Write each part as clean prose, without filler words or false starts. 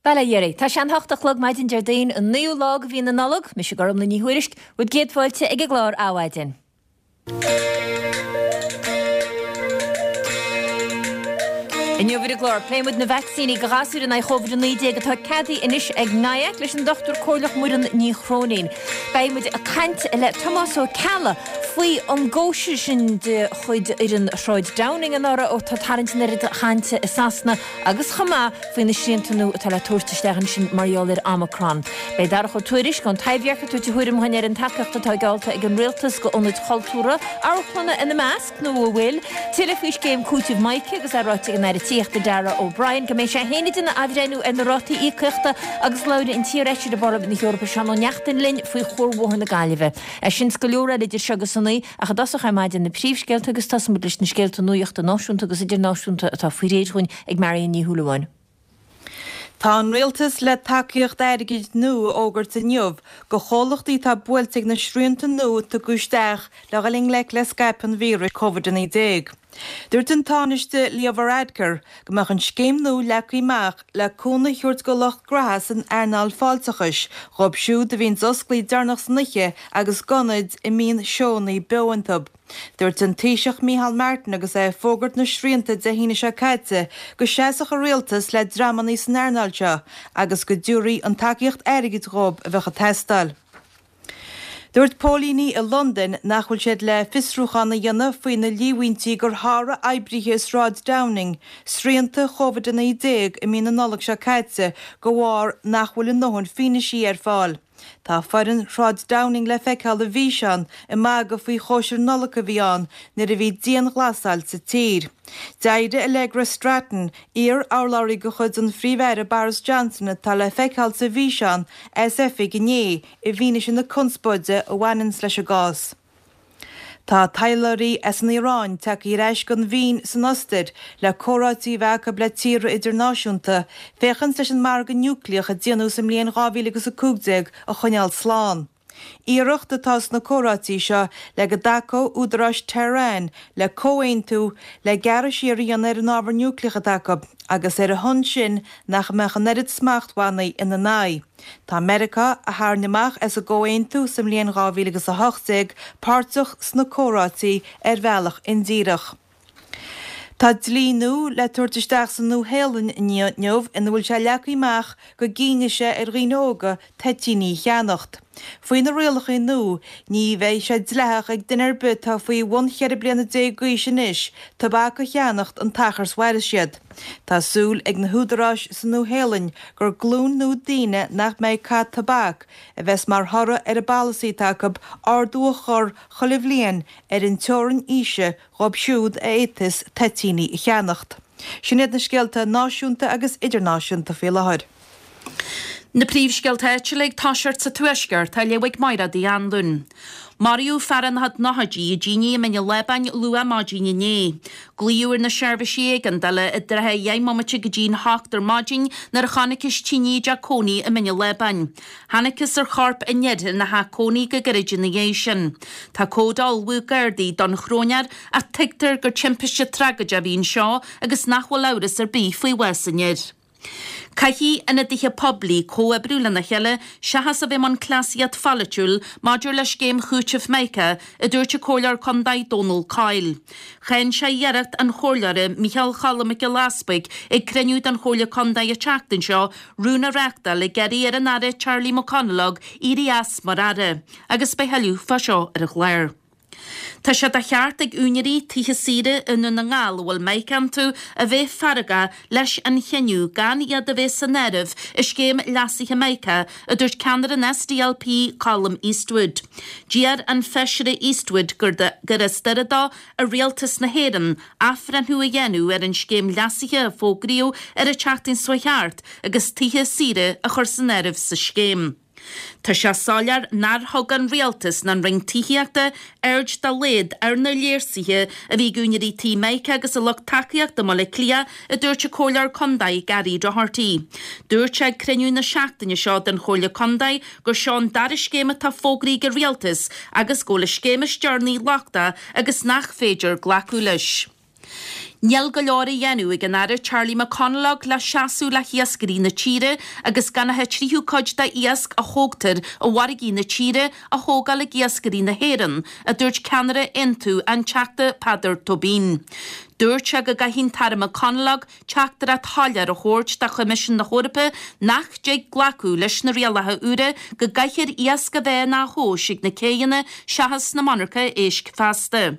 Bail ó Dhia oraibh. Tá sé an hocht a chlog maidin Déardaoin, an naoú lá de mhí na Nollag. Mise Gormlaith Ní Thuairisg, bhur gcéad fáilte ag an gclár Adhmhaidin. Inniu ar an gclár, pléifidh muid na vacsaíní do ghasúir in aghaidh Chóvid-19 atá ceadaithe anois ag NIAC leis an Dochtúir Comhairleach Muireann Ní Chróinín. Beidh muid ag caint le Tomás Ó Ceallaigh faoi an gcóisir sin de chuid fhoireann Shráid Downing anuraidh atá ag tarraingt an oiread cainte i Sasana agus chomh maith faoi na srianta nua atá le tabhairt isteach ansin mar gheall ar Omicron. Beidh Darach Ó Tuairisg ón Taibhdhearc ag tabhairt a thuairim dhúinn ar an tacaíocht atá geallta ag an Rialtas go ionaid chultúrtha, amharclanna ina measc, nó an bhfuil? Tuilleadh faoi scéim cúitimh Mica agus é ráite ag an Aire Tithíochta Darragh O'Brien go mbeidh sé féin ag déanamh athbhreithniú ar na rátaí íocaíochta agus labhróidh an t-iarfheisire i bParlaimint na hEorpa Seán Ó Neachtain linn faoi Chuarbhóthar na Gaillimhe. É sin 's go leor eile idir seo agus a naoi ach i dtosach ar maidin na príomhscéalta agus tosóidh muid leis na scéalta nuachta náisiúnta agus idirnáisiúnta atá faoi réir dhúinn ag Marion Ní Shúilleabháin. Tá an Rialtas le tacaíocht airgid nua a fhógairt inniu go chomhlachtaí atá buailte ag na srianta nua a tugadh isteach le dhul i ngleic le scaipeadh an víris Covid-19. Dúirt an Tánaiste Leo Varadkar go mbeadh an scéim nua leagtha amach le cúnamh a thabhairt go lucht graithe san earnáil fáilteachais, dhóibh siúd a bhíonns osclaithe deireanach san oíche agus d'ionaid a mbíonn seónna beo iontu. Dúirt an Taoiseach Micheál Martin agus é ag fógairt na srianta Dé hAoine seo caite go seasfadh a rialtas le dreamanna san earnáil seo agus go dtabharfaí an tacaíocht airgid dhóibh a bheadh ag teastáil. Dúirt póilíní i Londain nach bhfuil siad le fiosrúchán a dhéanamh faoi na líomhaintí gur sháraigh oibrithe i Sráid Downing srianta Covid-19 i mí na Nollag seo caite de bharr nach bhfuil a ndóthain fianaisí ar fáil. Tá foireann Shráid Downing le feiceáil i bhfíseán ag magadh faoi chóisir Nollag a bhí ann nuair a bhí dianghlasáil sa tír. D'éirigh Allegra Stratton, iar-urlabhraí de chuid an Phríomh-Aire Boris Johnson atá le feiceáil sa bhfíseán, as oifig inné i bhfianaise na conspóide a bhaineanns leis an gcás. Tá taidhleoirí as an Iaráin tagtha ar ais gon Vín san Ostair le comhráití a bheith acu le tíortha idirnáisiúnta féachaint leis an margadh núicléach a déanadh sa mbliain 2015 a choinneáil slán. Iarracht atá sna comhráití seo le go dtacódh údaráis Tehran le comhaontú le gearradh siar a dhéanamh ar an ábhar núicléach atá acu agus ar a shon sin nach mbeadh an oiread smachtbhannaí ina n-aghaidh. Tá Meiriceá, a tharraing amach as an gcomhaontú sa mbliain 2018, páirteach sna comhráití ar bhealach indíreach. Tá dlí nua le tabhairt isteach sa Nua-Shéalainn inniu ina bhfuil sé leagtha amach go gcinnfidh sé ar dhaoine óga toitíní a cheannacht. Faoi na rialacha nua, ní bheidh sé dleathach ag duine ar bith atá faoi bhun 14 bliana d'aois anois tobac a cheannacht an t-achar 's mhairfeas siad. Tá súil ag na húdaráis sa Nua-Shéalainn gur glúin nua daoine nach mbeidh ag caitheamh tobac a bheas mar thoradh ar an bpolasaí atá acu ardú a chur chuile bhliain ar an teorainn aoise dhóibh siúd a fhéadfas toitíní a cheannacht. Sin iad na scéalta náisiúnta agus idirnáisiúnta faoi láthair. Na príomhscéalta áitiúla ag toiseacht sa Tuaisceart á léamh ag Máiréad Uí Anluain. Maraíodh fear ina chuid nóchaidí i dtine i mBinn an Lábáin luath maidin inné. Glaodh ar na seirbhísí éigeandála i dtrátha dheich mbomaite go dtí'n hocht ar maidin nuair a chonacthas tine i dteach cónaí i mBinn an Lábáin. Thángthas ar chorp an fhir ina theach cónaí go gairid ina dhiaidh sin. Tá comhad á ullmhú ag Gardaí don chróinéir ach tuigtear gur timpiste tragóideach a bhí anseo agus nach bhfuil amhras ar bith faoi bhás an fhir. Caithfidh ionadaithe poiblí comhoibriú lena chéile seachas a bheith i mbun cleasaíocht pholaitiúil maidir le scéim chúitimh Mica, a dúirt an Comhairleoir Contae Dónal Coyle. Cháin sé iarracht an Chomhairleora Micheál Choilm Mac Giolla Easpaig ag cruinniú den Chomhairle Contae an tseachtain seo rún a reáchtáil ag iarraidh ar an Aire Charlie McConalogue éirí as mar Aire agus beidh tuilleadh fá seo ar an chlár. Tá sé de cheart ag úinéirí tithe saoire i nDún na nGall a bhfuil Mica iontu a bheith feargach leis an chinneadh gan iad a bheith san áireamh i scéim leasaithe Mica, a dúirt ceannaire an SDLP Colum Eastwood. D'iarr an Feisire Eastwood gur as Doire dó ar Rialtas na hÉireann athbhreithniú a dhéanamh ar an scéim leasaithe a fógraíodh ar an tseachtain seo thart agus tithe saoire a chur san áireamh sa scéim. Tá sé soiléir nár thug an Rialtas ná an Roinn Tithíochta aird dá laghad ar na léirsuithe a bhí ag úinéirí tí Mica agus a lucht tacaíochta i mBaile Átha Cliath, a dúirt an Comhairleoir Contae Gary Doherty. Dúirt sé ag cruinniú na seachtaine seo den Chomhairle Contae gur seo an dara scéim atá fógraithe ag an Rialtas agus go bhfuil an scéim is deireanaí lochtach agus nach féidir glacadh leis. Níl go leor á dhéanamh ag an Aire Charlie McConalogue le seasamh le hiascairí na tíre agus gan ach an tríú cuid de iasc a thógtar i bhfarraigí na tíre a thógáil ag iascairí na hÉireann, a dúirt ceannaire Aontú, an Teachta Peadar Tóibín. Dúirt sé go gcaithfidh an tAire McConalogue teachtaireacht shoiléir a thabhairt do Choimisiún na hEorpa nach dtig glacadh leis na rialacha úra go gcaithfear iasc a bheith á thomhas ag na céidheanna seachas sna monarcha éisc feasta.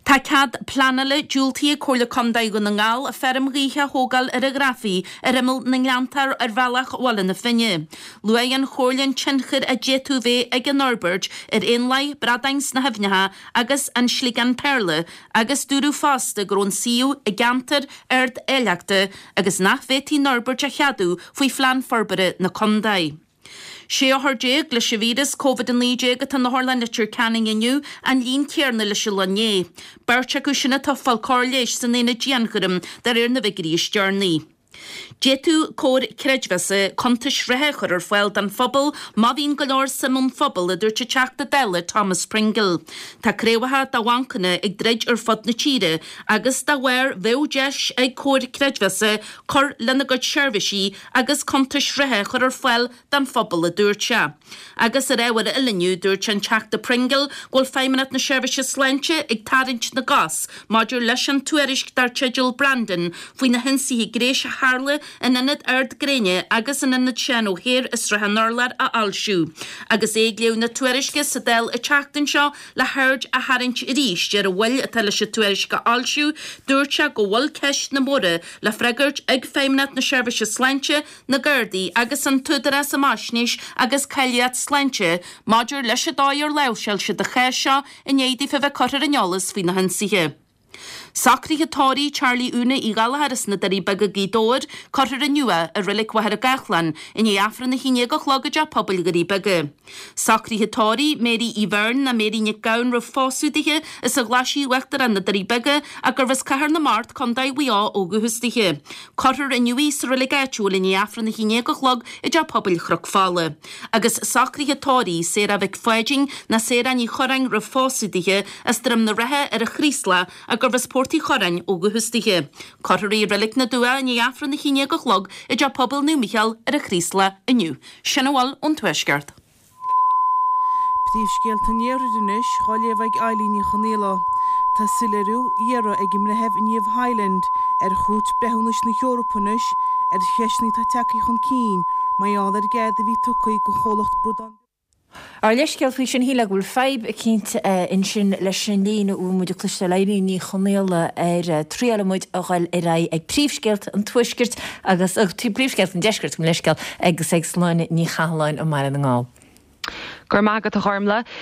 Tá cead pleanála diúltaithe ag Comhairle Contae Dhún na nGall feirm ghaoithe a thógáil ar an Ghrafaidh ar imeall na nGleanntach ar bhealach Bhaile na Finne. Luaigh an Chomhairle an tionchar a d'fhéadfadh bheith ag an fhorbairt ar éanlaith, bradáin sna haibhneacha agus an sliogán péarla agus dúradh fosta go raibh an suíomh i gceantar ard-áilleachta agus nach bhféadfaí an fhorbairt a cheadú faoi Phlean Forbartha na Contae. 16 othar leis an víreas Covid-19 atá in Otharlann Leitir Ceanainn inniu, an líon céarna leis an lá inné. Beirt acu sin atá ag fáil cóir leighis san aonad dianchúraim de réir na bhfigiúirí is deireanaí. D'fhéadfadh comhar creidmheasa cuntais reatha a chur ar fáil don phobal má bhíonn go leor suim ón phobal, a dúirt an Teachta Dála Thomas Pringle. Tá craobhacha de bhancanna ag druid ar fud na tíre agus dá bharr bheadh deis ag comhair creidmheasa cur lena gcuid seirbhísí agus cuntais reatha a chur ar fáil don phobal, a dúirt sé. Agus ar ábhar eile inniu, dúirt an Teachta Pringle go bhfuil Feidhmeannacht na Seirbhíse Sláinte ag tarraingt na gcos maidir leis an tuairisc dar teideal Brandon faoi na hionsaithe gnéis a tharla in Ionad Ard Gréine agus in Ionad Seán O'Hare i Srath an Urláir a fhoilsiú. Agus é ag léamh na tuairisce sa Dáil an tseachtain seo le haird a tharraingt arís ar an mhoill atá leis an tuairisc a fhoilsiú, dúirt sé go bhfuil ceisteanna móra le freagairt ag Feidhmeannacht na Seirbhíse Sláinte, na Gardaí agus an tÚdarás um Fhaisnéis agus Cáilíocht Sláinte maidir leis an dóigh ar láimhseáil siad an chás seo i ndiaidh daofa bheith curtha ar an eolas faoi na hionsaithe. Socruithe tórraimh Charlie Úna Uí Ghallchóir as na Doirí Beaga Gaoth Dobhair cuirfear inniu é i Reilig Mhachaire Gathlán i ndiaidh Aifreann 11 a chlog i dTeach Pobail Dhoirí Beaga. Socruithe tórraimh Mary Uí Bheirn ná Mary Nic Gabhann roimh phósadh dithe as an Ghlaisigh Uachtarach na Doirí Beaga ach gurbh as Cathair na Mart, Contae Mhaigh Eo ó dhúchas dithe. Cuirfear inniu í sa reilig áitiúil i ndiaidh Aifreann 11 a chlog i dTeach Pobail Chnoc Fola. Agus socruithe tórraimh Sarah Mhic Pháidín ná Sarah Ní Churráin roimh phósadh dithe as Droim na Rátha ar an Chraoslach ach gurbh as Port Uí Churráin ó dhúchas dithe. Cuirfear í i Reilig na dTuath i ndiaidh Aifreann 11 a chlog i dTeach Pobail Naomh Mícheál ar an Chraoslach inniu. Sin a bhfuil ón Tuaisceart. Príomhscéalta an Iarthair anois, dhá léamh ag Eilín Ní Chonaola. Tá soiléiriú á iarraidh ag an mBreitheamh Niamh Hyland ar Chúirt Breithiúnais na hEorpa anois ar cheisteanna atá tagtha chun cinn mar gheall ar an gcead a bhí tugtha don chomhlacht bradán Ár leithscéal faoi sin, shílfeá go bhfuil fadhb eicínt ansin leis an líne a bhfuil muid ag cloisteáil Eilín Ní Chonaola ar triailfidh muid a dhul ar aghaidh ag príomhscéalta an Tuaiscirt agus príomhscéalta an Deiscirt, mo leithscéal, agus ag Sláine Ní Chathalláin i mBaile na nGall. Go raibh maith agat, a Ghormlaith.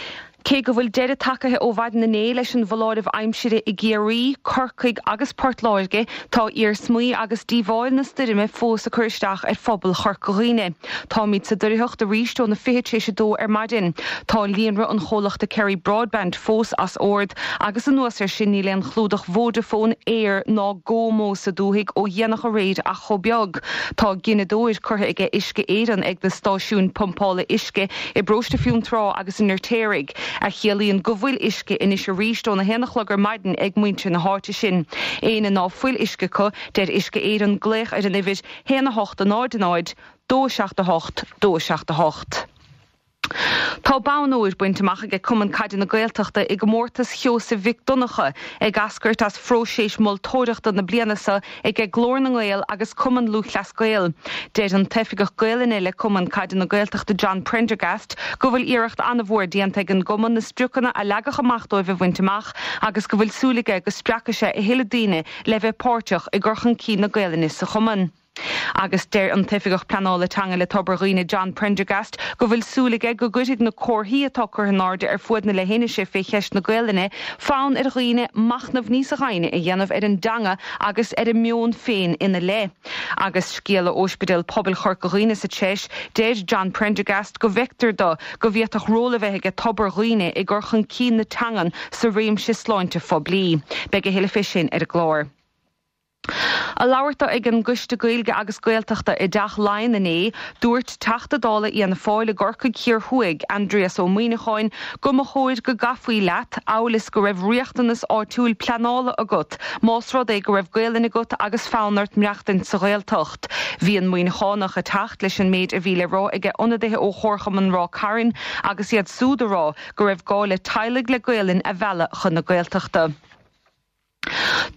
Cé go bhfuil deireadh tagaithe ó mhaidin inné leis an bhfoláireamh aimsire i gCiarraí, Corcaigh agus Port Láirge, tá iarsmaí agus díobháil na stoirme fós ag cur isteach ar phobal Chorca Dhuibhne. Táimid sa doircheacht arís óna fiche tar éis a dó ar maidin. Tá líonra an chomhlachta Kerry Broadband fós as ord agus anuas air sin níl aon chlúdach Vodafone, Eir ná GoMo sa dúthaigh ó dhéanach aréir ach chomh beag. Tá gineadóir curtha aige Uisce Éireann ag na stáisiúin pumpála uisce i bParóiste Fionntrá agus i nFeirtéaraigh, a chiallaíonn go bhfuil uisce anois arís óna haon a chlog ar maidin ag muintir na háite sin. Éinne ná fuil uisce acu, deir Uisce Éireann glaoch ar an uimhir 1 8 0 0 2 7 8 2 7 8. Tá bonn óir bainte amach aige Cumann Caide na Gaeltachta i gcomórtas Sheosaimh Mhic Donncha, ag eascairt as phróiseas moltóireachta na bliana seo aige Glór na nGael agus Cumann Lúthchleas Gael. Deir an tOifigeach Gaelainne le Cumann Caide na Gaeltachta John Prendergast go bhfuil iarracht an-mhór déanta ag an gcumann na spriocanna a leagadh amach dóibh a bhaint amach agus go bhfuil súil aige go spreagfaidh sé a thuilleadh daoine le bheith páirteach i gcur chun cinn na Gaelainne sa chumann. Agus deir an tOifigeach Pleanála Teanga le Tobar Dhuibhne John Prendergast go bhfuil súil aige go gcuirfidh na comharthaí atá curtha in airde ar fuaid na leithinise fé cheist na Gaelainne fonn ar dhaoine machnamh níosa dhoimhne a dhéanamh ar an dteanga agus ar a meon féin ina leith. Agus scéala ó Ospidéal Pobail Chorca Dhuibhne sa treis, deir John Prendergast go bhfeictear do go bhféadfadh ról a bheith aige Tobar Dhuibhne i gcur chun cinn na teangan sa réimse sláinte phoiblí. Beidh a thuilleadh fé sin ar an gclár. Ag labhairt dó ag an gCoiste Gaeilge agus Gaeltachta i dTeach Laighean inné, dúirt Teachta Dála Fhianna Fáil i gCorcaigh Thiar Thuaidh, Aindrias Ó Muimhneacháin, go mba chóir go gcaithfí leat, amhail is go raibh riachtanas áitiúil pleanála agat, más rud é go raibh Gaelainn agat agus fonn ort maireachtaint sa Ghaeltacht. Bhí an Muimhneachánach ag teacht leis an méid a bhí le rá aige ionadaithe ó Chomharchumann Ráth Cairn agus iad súd a rá go raibh gá le teaghlaigh le Gaelainn a mhealladh chun na Gaeltachta.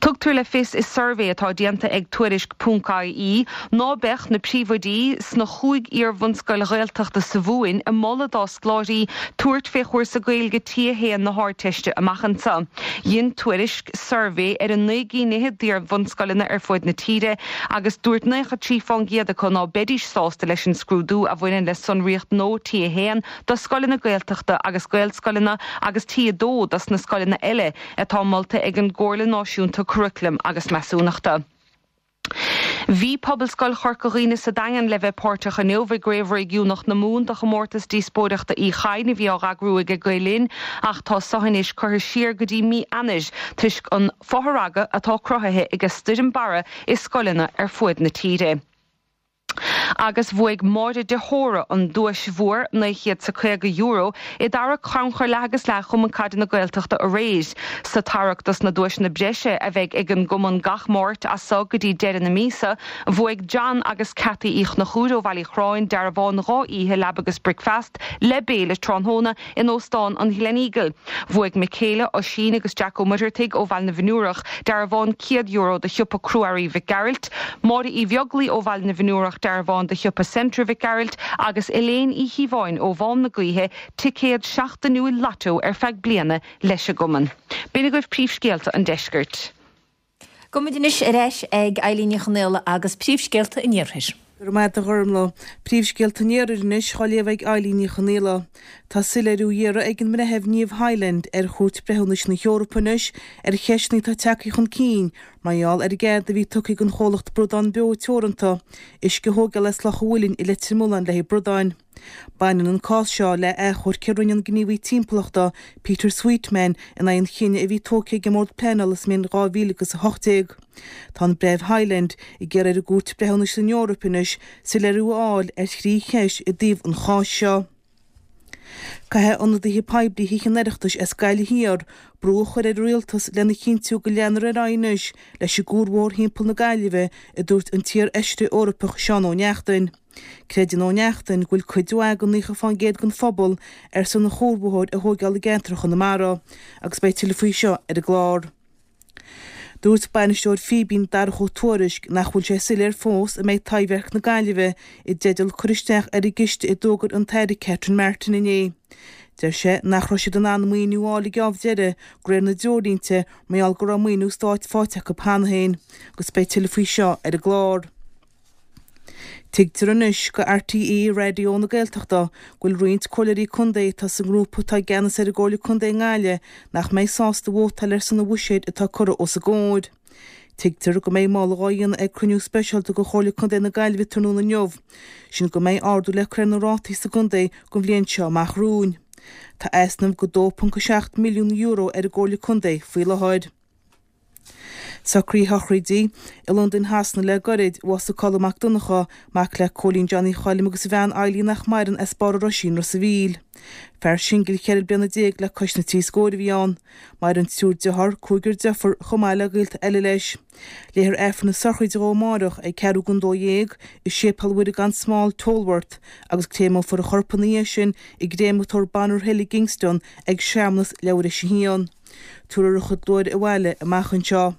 Tugtar le fios i suirbhé atá déanta ag Tuairisc Ponc IE ná beadh na príomhoidí sna chúig iar-bhunscoil Ghaeltachta sa Mhumhain ag moladh dá scoláirí tabhairt fé chúrsa Gaeilge T1 na hArdteiste amach anseo. Dhein Tuairisc suirbhé ar 9 gcinn fhichead d'iar-bhunscoileanna ar fuaid na tíre agus dúirt 93 fán gcéad acu ná beidís sásta leis an scrúdú a bhaineann le sonraíocht nua T1 do scoileanna Gaeltachta agus Gaelscoileanna agus T2 dos na scoileanna eile atá molta ag an gComhairle Náisiúnta Curaclaim agus Measúnachta. Bhí Pobalscoil Chorca Dhuibhne sa Daingean le bheith páirteach inniu i gCraobh Réigiúnach na Mumhan do Chomórtas Díospóireachta Uí Chadhain a bhí á eagrú aige Gael Linn ach tá so anois curtha siar go dtí mí Eanáir toisc an fothragadh atá cruthaithe ag Stoirm Barra i scoileanna ar fuaid na tíre. Agus bhuaigh Máire de hÓra an duais mhór, €950, i dtarrac Chrannchur Leath agus Leath Chumann Caide na Gaeltachta aréir. Sa tarrac dos na duaiseanna breise a bheidh ag an gcumann gach Máirt as so go dtí deireadh na míosa, bhuaigh John agus Cathy Uí Chonchúir ó Bhaile Uí Chorráin dearbhán 2 oíche leaba agus bricfeast le béile tráthnóna In Óstán an Gleneagle, bhuaigh Michaela, Oisín agus Jack Ó Muircheartaigh ó Bhaile na bhFionnúrach dearbhán €100 do shiopa Crua-Earraí Mhic Gearailt, Máire Uí Bheaglaoi ó Bhaile na bhFionnúrach dearbhán do shiopa Centra Mhic Gearailt agus Elaine Uí Chíobháin ó Mhám na Gaoithe ticéad seachtainiúil Lotto ar feadh bliana leis an gcumann. B'in agaibh príomhscéalta an deiscirt. Gabhfaidh muid anois ar ais ag Eilín Ní Chonaola agus príomhscéalta an iarthair. Go raibh maith agat a Ghormlaith. Príomhscéalta an iarthair anois á léamh ag Eilín Ní Chonaola. Tá soiléiriú á iarraidh ag an mBreitheamh Niamh Hyland ar Chúirt Breithiúnais na hEorpa anois ar cheisteanna atá tagtha chun cinn mar gheall ar an gcead a bhí tugtha ag an chomhlacht Bradán Beo Teoranta uisce a thógáil as Loch an Mhuilinn i Leitir Mealláin le haghaidh bradáin. Baineann an cás seo le achomharc a rinne an gníomhaí timpeallachta, Peter Sweetman, in aghaidh an chinnidh a bhí tógtha ag an mBord Pleanála sa mbliain 2018. Tá an Breitheamh Hyland ag iarraidh ar an gCúirt Breithiúnais san Eoraip anois soiléiriú a fháil ar thrí cheist i dtaobh an cháis seo. Caithfidh ionadaithe poiblí Thithe an Oireachtais as Gaillimh Thiar brú a chur ar an Rialtas lena chinntiú go leanfar ar aghaidh anois leis an gcuarbhóthar thimpeall na Gaillimhe, a dúirt an t-iar-fheisire Eorpach Seán Ó Neachtain. Creideann Ó Neachtain go bhfuil cuid mhaith den 90% den phobal ar son an chuarbhóthair a thóigeáil i gceantar Chonamara agus beidh tuilleadh faoi seo ar an gclár. Dúirt bainisteoir Fíbín Darach Ó Tuairisg nach bhfuil sé soiléir fós an mbeidh Taibhdhearc na Gaillimhe i dteideal cur isteach ar an gciste a d'fhógair an tAire Catherine Martin inné. Deir sé nach raibh siad in ann maoiniú a fháil ag am deiridh de réir na dtreoirlínte mar gheall go raibh maoiniú stáit faighte acu cheana féin agus beidh tuilleadh faoi seo ar an gclár. Tuigtear anois go RTÉ Raidió na Gaeltachta go bhfuil roinnt comhairleoirí contae atá sa ngrúpa atá i gceannas ar an gComhairle Contae i nGaillimh nach mbeidh sásta vótáil ar son an bhuiséid atá curtha os a gcomhair. Tuigtear go mbeidh moladh á dhéanamh ag cruinniú speisialta de Chomhairle Contae na Gaillimhe tráthnóna inniu, sin go mbeidh ardú le cur ar na rátaí sa gcontae don bhliain seo amach romhainn. Tá easnamh de €2.7 milliún ar an gComhairle Contae faoi láthair. Socruithe a shochraide i Londain Shasana le goirid, bhásaigh Colm Mac Donncha, mac le Cóilín Johnny Choilm agus a bhean Eilín nach maireann as Barr an Roisín, Ros a' Mhíl. Fear singil 14 bliana le cois na dtrí scóir a bhí ann. Maireann triúr dearthár, cúigear deirfiúr chomh maith le gaolta eile leis. Léifear Aifreann na sochraide dhó amáireach ag ceathrú don 12 i Séipéal Mhuire gan Smál, Tolworth, agus créameofar a chorp ina dhiaidh sin i gcréamatóir Bonner Hill i gKingston ag searmanas leathuair théis a haon. Tabharfar a chuid luaithre abhaile amach anseo.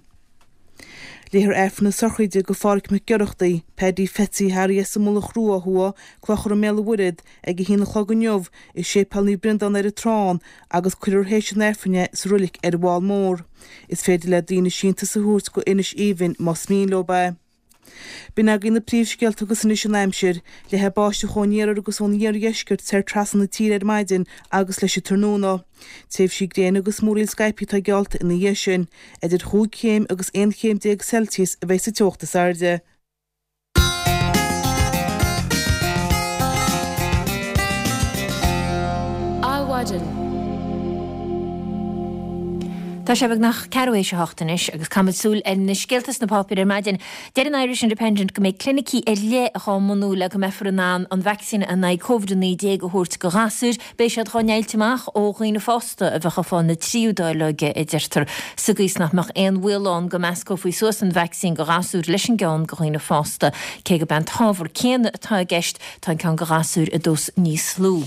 Léifear Aifreann na sochraide do Phádhraic Mac Oireachtaigh, Paddy Pheatsaí Harry as an Mullach Rua ó thuaidh, Clochar i mBéal an Mhuirthead, ag a haon a chlog inniu i Séipéal Naomh Breandán ar an Trán agus cuirfear théis an Aifrinn é sa roilig ar an bhFál Mór. Is féidir le daoine síntiús a thabhairt go Inis Aoibhinn más mian leo é. B'in agaibh na príomhscéalta agus anois an aimsir. Leathfaidh báisteach ón iarthar agus ón iardheisceart soir trasna na tíre ar maidin agus leis an tráthnóna. Tréimhsí gréine agus múraíl scaipthe atá geallta ina dhiaidh sin. Idir chúig chéim agus 11 chéim Celsius a bheidh sa teocht is airde. Adhmhaidin. Tá sé beagnach ceathrú théis a hocht anois agus caithfimid súil ar na scéalta sna páipéir ar maidin. Deir an Irish Independent go mbeidh clinicí ar leith dhá mbunú le go mbeifear in ann an vacsaín in aghaidh Covid-19 a thabhairt go ghasúir. Beidh siad dhá ndeighilt amach ó dhaoine fásta a bheadh ag fáil na tríú dáileoige, a deirtear, sa gcaoi is nach mbeadh aon bhaol ann go meascófaí suas an vacsaín go ghasúir leis an gceann go dhaoine fásta. Cé gurb é an t-ábhar céanna atá i gceist, tá an ceann go ghasúir i dós níos lú.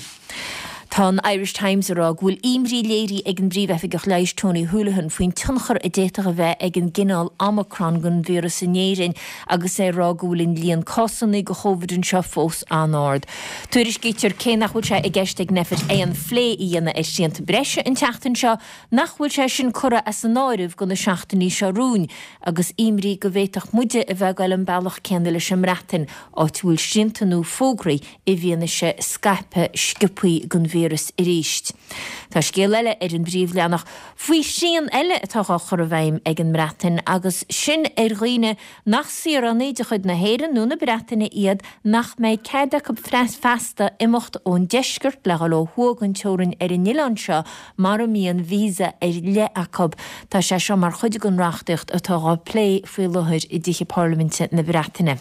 Tá an Irish Times ag rá go bhfuil imní léirithe ag an bPríomh-Oifigeach Leighis Tony Holohan faoin tionchar a d'fhéadfadh a bheith ag an gcineál Omicron den víreas in Éirinn agus é ag rá go bhfuil an líon cásanna de Chóvid anseo fós an-ard. Tuairiscítear cé nach bhfuil sé i gceist ag Nphet aon phlé a dhéanamh ar shrianta breise an tseachtain seo, nach bhfuil sé sin curtha as an áireamh do na seachtainí seo romhainn agus imní go bhféadfadh muide a bheith ag goil an bealach céanna leis an mBreatain, áit a bhfuil srianta nua fógraithe i bhfianaise scaipeadh sciobthaí den víreas arís. Tá scéal eile ar an bpríomhleathanach faoi shrian eile atá á chur i bhfeidhm ag an mBreatain agus sin ar dhaoine nach saoránaigh de chuid na hÉireann nó na Breataine iad nach mbeidh cead acu feasta imeacht ón deisceart le dhul ó thuaidh den teorainn ar an oileán seo mara mbíonn visa ar leith acu. Tá sé seo mar chuid den reachtaíocht atá á plé faoi láthair i dtithe parlaiminte na Breataine.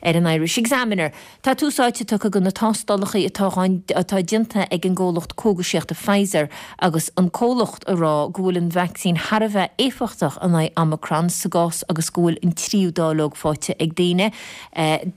Ar an Irish Examiner, tá tús áite tugtha do na tástálacha atá atá déanta ag an gcomhlacht cógaisíochta Pfizer agus an comhlacht ag rá go bhfuil an vacsaín thar a bheith éifeachtach in aghaidh Omicron sa gcás agus go bhfuil an tríú dáileog faighte ag daoine.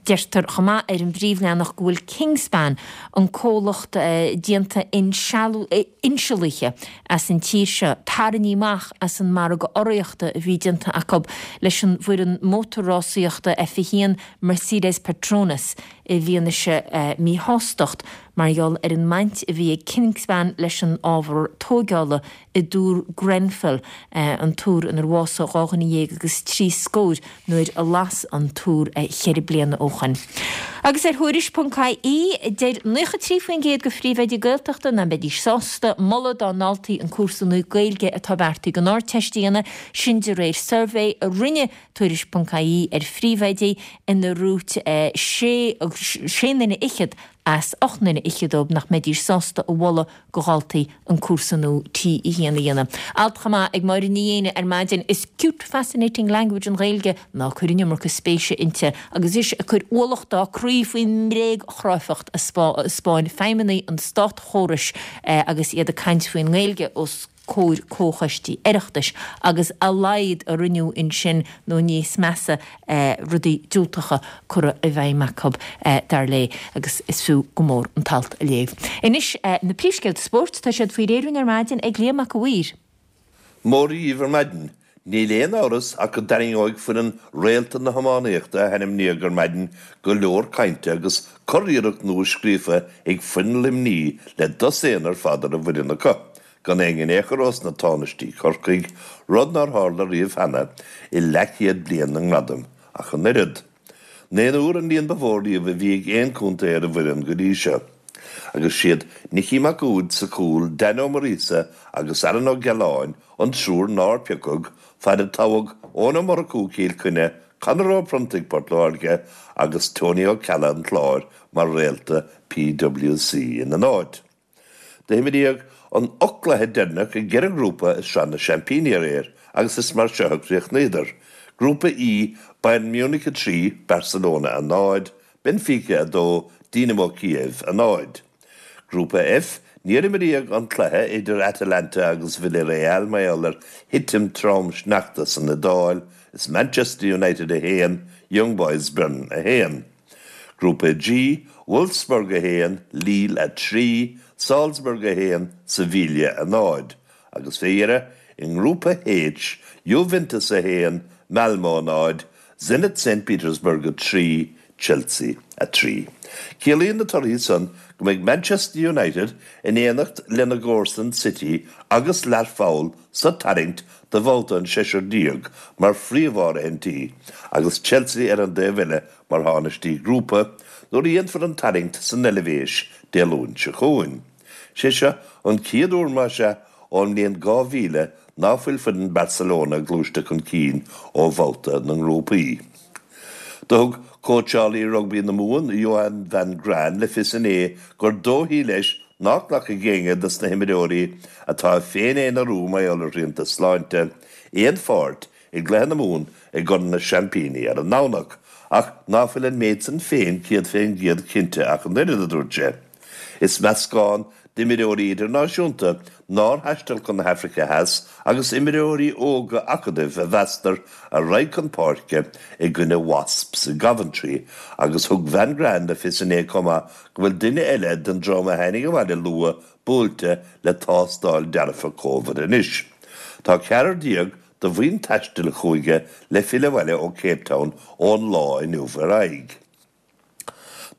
Deirtear chomh maith ar an bpríomhleathanach go bhfuil Kingspan, an comhlacht déanta insealaithe, as an tír seo, tarraingthe amach as an margadh urraíochta a bhí déanta acu leis an bhfoireann mótarrásaíochta F1 Mercedes Petronas i bhfianaise míshástacht mar gheall ar an mbaint a bhí ag Kingspan leis an ábhar tóigeála i dTúr Grenfell, an túr inar bhásaigh 12 dhuine agus 3 scór nuair a las an túr cheithre bliana ó shoin. Agus ar Thuairisc ponc ie, deir 93% de phríomhoidí Gaeltachta nach mbeidís sásta moladh dá ndaltaí an cúrsa nua Gaeilge atá beartaithe don Ardteist a dhéanamh, sin de réir suirbhé a rinne Tuairisc ponc ie ar phríomhoidí inar dhúirt sé nduine fhichead as 8 nduine fhichead dóibh nach mbeidís sásta a mholadh do dhaltaí an cúrsa nua T1 a dhéanamh. Alt chomh maith ag Máire Ní Éinne ar maidin, Is cute fascinating language an Ghaeilge, ná cuir an iomarca spéise inti, agus ise ag cur ualach dá croí faoin mbréagchráifeacht a 'spáin feidhmeannaigh an státchórais agus iad ag caint faoin nGaeilge os comhair comhchoistí Oireachtais agus a laghad a rinneadh ansin nó níos measa rudaí diúltacha curtha i bhfeidhm acu, dar léi, agus is fiú go mór an t-alt a léamh. Anois, na príomhscéalta spóirt, tá siad faoi réir ar maidin ag Liam Mac a' Mhaoir. Móra dhíbh ar maidin. Níl aon amhras ach go dtarraingeoidh foireann réalta na hiománaíochta a hainmníodh ar maidin go leor cainte agus curiarracht nua scríofa ag foireann Luimnigh le dosaen ar fad ar an bhfoireann acu, gan aon in aon chor ós na tánaistí Corcaigh, rud nár tharla riamh cheana i leathchéad bliain na ngradam ach an oiread. Naonúr an líon ba mhó riamh a bhí ag aon chontae ar an bhfoireann go dtí seo. Agus siad Nicky Mac Uaid sa chúl, Dan Ó Muiríosa agus Aaron Ó Gealáin an triúr nár piocadh, fad a toghadh Eoin Ó Murchú Cill Chainnigh, Conor Ó Pronntaigh Port Láirge agus Tony Ó Ceallaigh an Chláir mar réalta PWC ina n-áit. D'imríodh an 8 gcluiche deireanach i gceithre ghrúpa i Sraith na Seaimpíní aréir agus is mar seo a chríochnaíodar, Grúpa E, Bayern Munich 3, Barcelona 0, Benfica 2, Dynamo Kiev 0. Grúpa F, Níor imríodh an cluiche idir Atalanta agus Villarreal mar gheall ar thitim trom sneachta san Iodáil, is Manchester United 1, Young Boys Bern 1. Grúpa G, Wolfsburg 1, Lille 3, Salzburg 1, Sevilla 0. Agus fé dheireadh, i nGrúpa H, Juventus 1, Malmo 0, Zenit St Petersburg 3, Chelsea 3. Ciallaíonn na torthaí san go mbeidh Manchester United in éineacht lena gcomharsain City agus Learpholl sa tarraingt do bhabhta an seisear déag mar phríomh-áirithintí agus Chelsea ar an dtaobh eile mar thánaistí grúpa nuair a dhéanfar an tarraingt san Eilvéis Dé Luain seo chugainn. Sé seo an chéad uair más ea ón mbliain 2000 ná fuil foireann Barcelona gluaiste chun cinn ó bhabhta na ngrúpaí. Do thug cóitseálaí rugbaí na Mumhan, Johann van Graan, le fios inné gur dóichí leis ná glacfaidh éinne dos na himreoirí atá ag féin-aonarú mar gheall ar shrianta sláinte, aon pháirt i gcluiche na Mumhan i gCorn na Seaimpíní ar an nDomhnach, ach ná fuil an méid san féin 100% cinnte ach an oiread, a dúirt sé. Is meascán d'imreoirí idirnáisiúnta nár thaistil chun na hAfraice Theas agus imreoirí óga acadaimh a mheastar a raghaidh chun páirce i gcoinne Wasps i gCoventry agus thug Van Graan le fios inné chomh maith go bhfuil duine eile den dream a tháinig abhaile luath buailte le tástáil dearfa Covid anois. Tá 14 de bhuíon taistil chúige le filleadh abhaile ó Cape Town ón lá inniu ar aghaidh.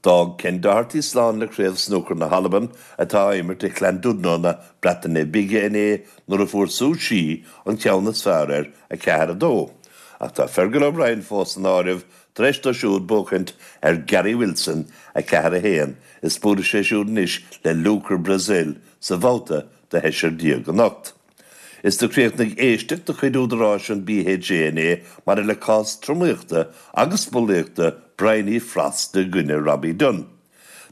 D'fhág Ken Doherty slán le Craobh Snúcair na hAlban atá á imirt i Llandudno na Breataine Bige inné nuair a fuair Su Shi an ceann is fearr air, 4, 2. Ach tá Fergal O'Brien fós san áireamh tar éis dó siúd buachaint ar Gary Wilson, 4, 1, is buailfidh sé siúd anois le Luca Brecel sa bhabhta do sheisear déag anocht. Is do chríochnaigh éisteacht de chuid údaráis an BHA inné maidir le cás tromaíochta agus bulaíochta Bryony Frost i gcoinne Robbie Dunne.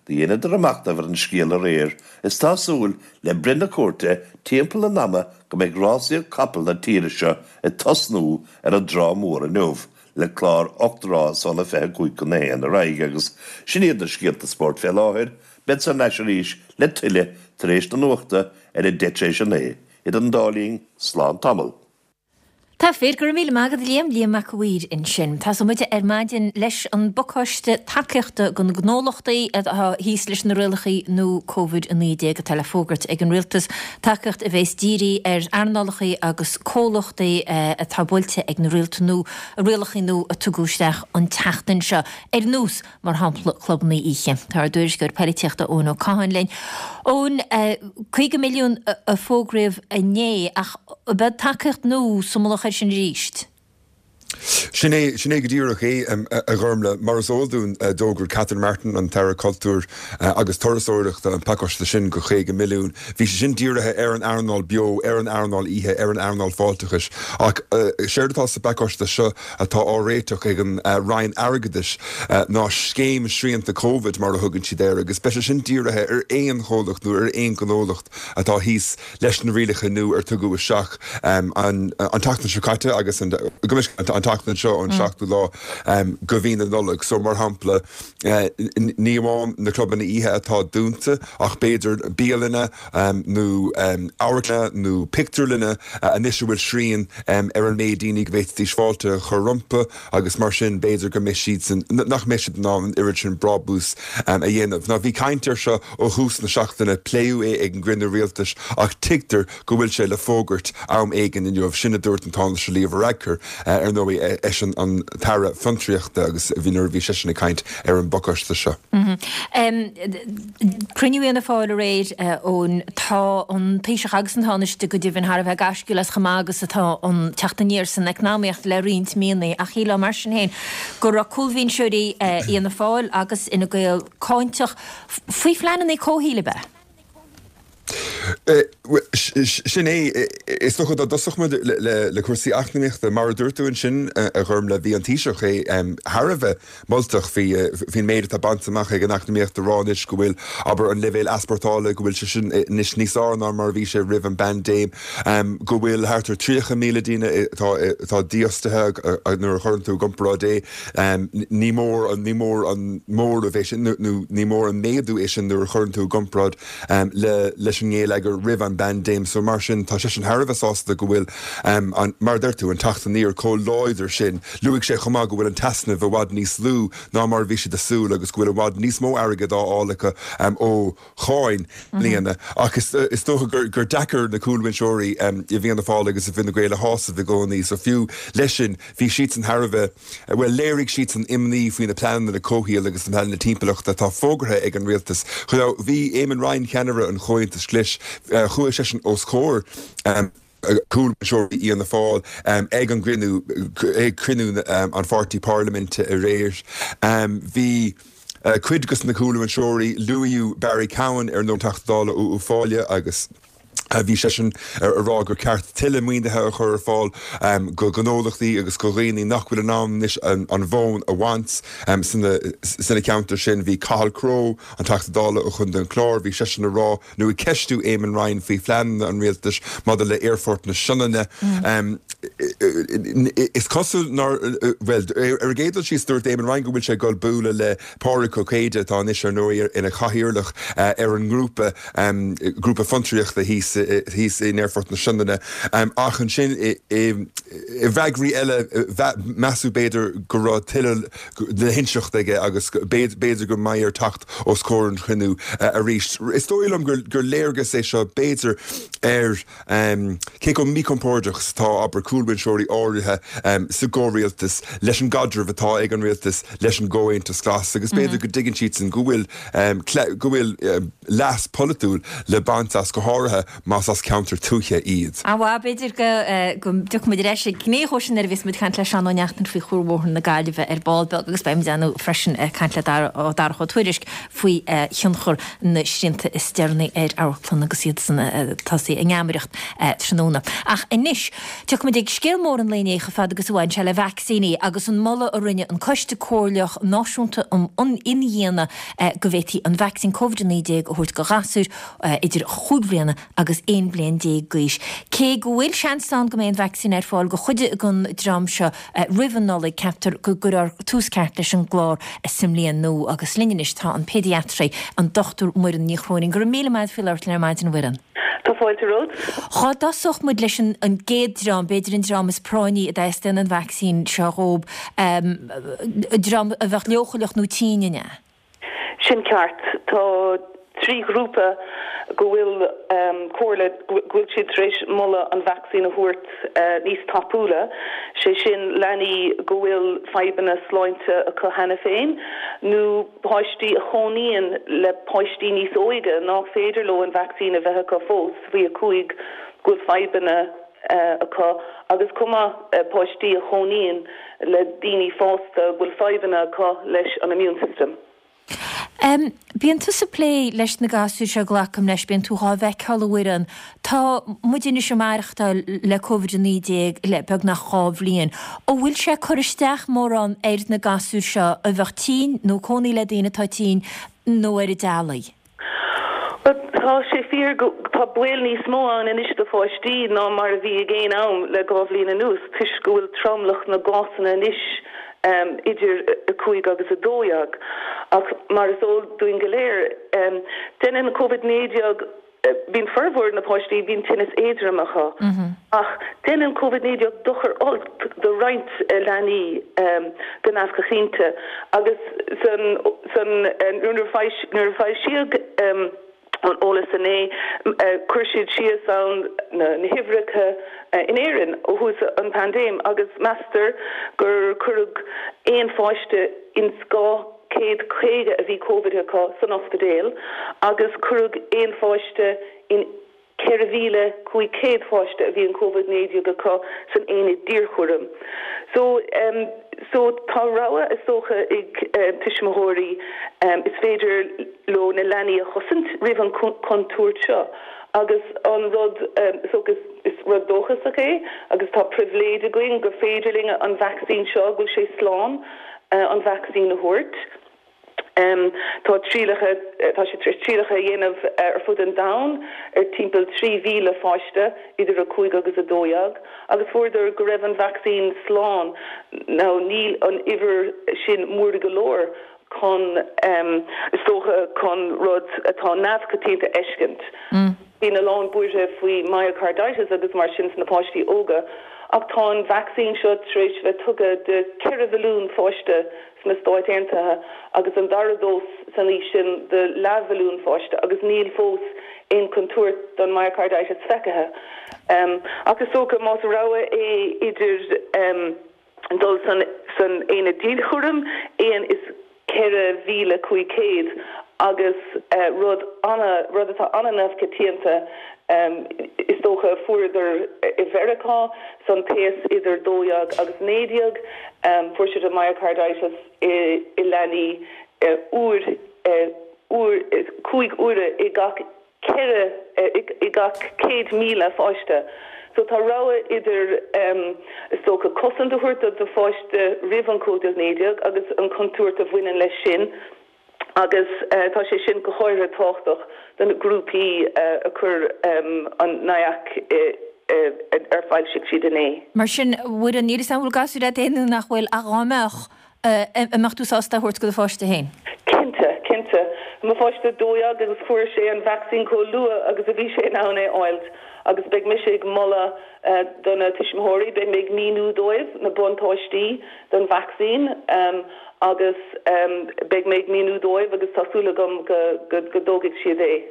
Do dheineadar a machnamh ar an scéal aréir is tá súil le breith na cúirte timpeall an ama go mbeidh rásaíocht capall na tíre seo ag tosnú ar an dTrá Mhór inniu le clár 8 rás óna 25 chun a haon ar aghaidh agus sin iad na scéalta spóirt fé láthair. Beadsa thar n-ais arís le tuilleadh tar éis na nuachta ar a 9:10 tar éis a 9. Idir an dá linn, slán tamall. Tá fíor, go raibh míle maith agat a Liam, Liam Mac a' Mhaoir ansin. Tosóidh muid ar maidin leis an bpacáiste tacaíochta do na gnólachtaí atá thíos leis na rialacha nua Covid-19 atá le fógairt ag an Rialtas, tacaíocht a bhéas dírithe ar earnálacha agus comhlachtaí atá buailte ag na rialta nua, rialacha nua a tugadh isteach an tseachtain seo, ar nós mar shampla clubanna oíche. Tá ár dtuairisceoir poilitíochta Eoin Ó Catháin linn. Eoin, 50 milliún a fógraíodh inné ach beidh tacaíocht nua sa mullach air sin arís? Sin é, sin é go díreach é, a Ghormlaith. Mar is eol dúinn, d'fhógair Catherine Martin, an tAire Cultúir agus Turasóireachta, an pacáiste sin de 50 milliún. Bhí sé sin dírithe ar an earnáil beo, ar an earnáil oíche, ar an earnáil fáilteachais. Ach séard atá sa bpacáiste seo, atá á réiteach ag an Roinn Airgeadais ná Scéim Srianta Covid, mar a thugann siad air, agus beidh sé sin dírithe ar aon chomhlacht nó ar aon ghnólacht atá thíos leis na rialacha nua ar tugadh isteach an tseachtain seo caite agus an tseachtain seo ón seachtú lá de mhí na Nollag. So, mar shampla, ní amháin na clubanna oíche atá dúnta ach b'fhéidir bialanna, nó amharclanna nó pictiúrlanna anois a bhfuil srian ar an méid daoine go bhféadfaidís fáilte a chur rompu agus mar sin b'fhéidir go mbeidh siadsan, nach mbeidh siad in ann an oiread sin brabús a dhéanamh. Now bhí caint air seo ó thús na seachtaine, pléadh é ag an gcruinniú rialtais ach tuigtear go bhfuil sé le fógairt am éigin inniu, sin a dúirt an Tánaiste Leo Varadkar, ar ndóigh eisean an tAire Fiontraíochta agus bhí nuair a bhí seisean ag caint ar an bpacáiste seo. Cruinniú Fhianna Fáil aréir, Eoin. Tá an Taoiseach agus an Tánaiste go deimhin thar a bheith gaisciúil as chomh maith agus atá an teacht aniar san eacnamaíocht le roinnt míonna ach shílfeá mar sin féin go raibh cúlbhinseoirí Fhianna Fáil agus Fhine Gael cáinteach faoi phleananna comhshaoil, ab ea? Sin é. Is dócha dá dtosódh muid le cúrsaí eacnamaíochta, mar a dúirt tú ansin, a Ghormlaith, bhí an Taoiseach é thar a bheith moltach faoin méid atá bainte amach ag an eacnamaíocht a rá anois go bhfuil, abair, an leibhéal easpórtála, go bhfuil sé sin anois níos fearr ná mar a bhí sé roimh an bpaindéim, go bhfuil thart ar 30,000 daoine atá dífhostaithe nuair a chuireann tú i gcomparáid é. Ní mór an, ní mór an móramh é sin nó ní mór an méadú é sin nuair a chuireann tú i gcomparáid le, leis an ngeilleagar roimh an bpaindéim. So mar sin, tá seisean thar a bheith sásta go bhfuil an, mar a deir tú, an teacht aniar chomh láidir sin. Luaigh sé chomh maith go bhfuil an t-easnamh i bhfad níos lú ná mar a bhí siad ag súil agus go bhfuil i bhfad níos mó airgid á fháil acu ó cháin i mbliana. Ach is dócha gur deacair na cúlbhinseoirí i bhFianna Fáil agus i bhFine Gael a shásamh i gcónaí. So fiú leis sin, bhí siadsan thar a bheith, bhuel, léirigh siadsan imní faoi na pleananna comhshaoil agus na pleananna timpeallachta atá fógartha ag an rialtas. Now, bhí Eamon Ryan, ceannaire an Chomhaontais Ghlais, chuaigh seisean os comhair cúlbhinseoirí Fhianna Fáil ag an gcruinniú, ag cruinniú an pháirtí parlaiminte aréir. Bhí cuid de na cúlbhinseoirí, luaíodh Barry Cowen, ar ndóigh, Teachta Dála ó Uíbh Fhailí agus. Bhí seisean ag rá gur ceart tuilleadh maoinithe a chur ar fáil go gnólachtaí agus go dhaoine nach bhfuil in ann anois an mhóin a bhaint sna ceantair sin. Bhí Cathal Crowe, an Teachta Dála ó Chontae an Chláir, bhí seisean ag rá nó ag ceistiú Eamon Ryan faoi phleananna an rialtais maidir le Aerfort na Sionainne. Is cosúil nár, bhuel, ar an gcéad dul síos dúirt Eamon Ryan go bhfuil sé ag dul bualadh le Pádraig Ó Céide, atá anois ar ndóigh ina chathaoirleach ar an ngrúpa, grúpa fiontraíochta thíos thíos in Aerfort na Sionainne. Ach ansin i bhfreagraí eile measadh b'fhéidir go raibh tuilleadh le hinseacht aige agus b'fhéidir go mbeidh air teacht os comhair an chruinniú arís. Is dóigh liom gur léargas é seo b'fhéidir ar Cé chomh míchompordach is atá, abair, cúlbhinseoirí áirithe sa gcomhrialtas leis an gcaidreamh atá ag an rialtas leis an gComhaontas Glas agus b'fhéidir go dtuigeann siadsan go bhfuil, go bhfuil leas polaitiúil le baint as, go háirithe más as ceantar tuaithe iad. Á bhuel, b'fhéidir go, go dtiocfaidh muid ar ais ag gné dhó sin nuair a bheas muid ag caint le Seán Ó Neachtain faoi Chuarbhóthar na Gaillimhe ar ball beag agus beidh muid ar ndóigh freisin ag caint le Darach Ó Tuairisg faoi thionchar na srianta is deireanaí ar amharclanna agus iad san tosaí a ngeamaireacht tráthnóna. Ach anois, tiocfaimid ag scéal mór an lae inné chomh fada agus a bhain sé le vacsaíní agus an moladh a rinne an Coiste Comhairleach Náisiúnta um Imdhíonadh go bhféadfaí an vacsaín Covid-19 a thabhairt do ghasúir idir chúig bhliana agus 11 bliain d'aois. Cé go bhfuil seans ann go mbeidh an vacsaín ar fáil do chuid den dream seo roimh an Nollaig, ceaptar go gcuirfear tús ceart leis an gclár sa mbliain nua. Agus linn anois tá an péidiatraí, an Dr Muireann Ní Chróinín. Go raibh míle maith agat faoi labhairt linn ar maidin, a Mhuireann. Tá fáilte romhat. Dhá dtosódh muid leis an gcéad dream, b'fhéidir an dream is práinní a dteastaíonn an vacsaín seo dhóib, dream a bheadh leochaileach nó tinn, an ea? Sin ceart. Tá 3 ghrúpa go bhfuil comhairle, go bhfuil siad tar éis moladh an vacsaín a thabhairt níos tapúla, sé sin leanaí go bhfuil fadhbanna sláinte acu cheana féin nó páistí a chónaíonn le páistí níos óige nach féidir leo an vacsaín a bheith acu fós, faoi 5, go bhfuil fadhbanna acu agus chomh maith páistí a chónaíonn le daoine fásta go bhfuil fadhbanna acu leis an immune system. M, Bíonn tusa ag plé leis na gasúir seo, glacaim leis, bíonn tú dhá bhfeiceáil a Mhuireann. Tá muid anois ag maireachtáil le Covid-19 le beagnach 2 bhliain. An bhfuil sé ag cur isteach mórán ar na gasúir seo a bheadh tinn nó cónaí le daoine atá tinn nó ar a dteaghlaigh? Bhuel, tá sé fíor go, tá baol níos mó ann anois do pháistí ná mar a bhí ag aon am le 2 bhliain anuas toisc go bhfuil tromlach na gcásanna anois idir 5 agus 12. Ach mar is eol dúinn go léir, déanann Covid-19, bíonn formhór na páistí, bíonn tinneas éadrom acu. Ach déanann Covid-19 dochar olc do roinnt leanaí go neamhchoitianta agus san san nuair a foilsíodh an eolas inné chuir siad síos ann na huimhreacha in Éirinn ó thús an paindéim agus meastar gur cuireadh aon pháiste ins 250 a bhí Covid acu san ospidéal agus cuireadh aon pháiste in 4,500 pháiste a bhí an Covid-19 acu san aonad dianchúraim. So, so tá rogha is dócha ag tuismitheoirí, is féidir leo na leanaí a chosaint roimh an chontúirt seo agus an rud, is dócha, is rud dóchasach é agus tá pribhléid againn gur féidir linn an vacsaín seo, go bhfuil sé slán an vacsaín a thabhairt. Tá trialacha, tá siad tar éis trialacha a dhéanamh ar fud an domhain ar timpeall 3,000 pháiste idir 5 agus 12 agus fuaireadar go raibh an vacsaín slán. Now níl an uimhir sin mór go leor chun, is dócha, chun rud atá neamhchoitianta a fheiscint. Bíonn a lán buartha faoi myocarditis agus mar sin sna páistí óga ach tá an vacsaín seo tar éis bheith tugtha do 4 mhilliún pháiste sna Stáit Aontaithe agus an dara dós san aois sin do leathmhilliún pháiste agus níl fós aon chontúirt don myocarditis feicthe. Ach is dócha más rogha é idir dul san san aonad dianchúraim, aon is 4,500 agus rud ana, rud atá ana-neamhchoitianta is dócha, fuaireadar i Mheiriceá san t-aos idir 12 agus 19, fuair siad an myocarditis i leanaí uair, uair, 5 uaire i gach. 4 i gach 100,000 pháiste. So tá rogha idir, is dócha, cosaint a thabhairt do do pháiste roimh an Covid-19 agus an chontúirt a bhaineann leis sin agus tá sé sin go háirithe tábhachtach do na grúpaí a chuir an NIAC ar foilsigh siad inné. Mar sin, a Mhuireann, níl 'fhios a'm an bhfuil gasúir agat fhéin nó nach bhfuil, ach dhá mbeadh, an mbeadh tú sásta é a thabhairt do do pháiste féin? Cinnte, cinnte. Mo pháiste 12 agus fuair sé an vacsaín chomh luath agus a bhí sé in ann é a fháilt agus beidh mise ag moladh do na tuismitheoirí, beidh mé ag míniú dóibh na buntáistí don vacsaín agus beidh mé ag míniú dóibh agus tá súil agam go dtógfaidh siad é.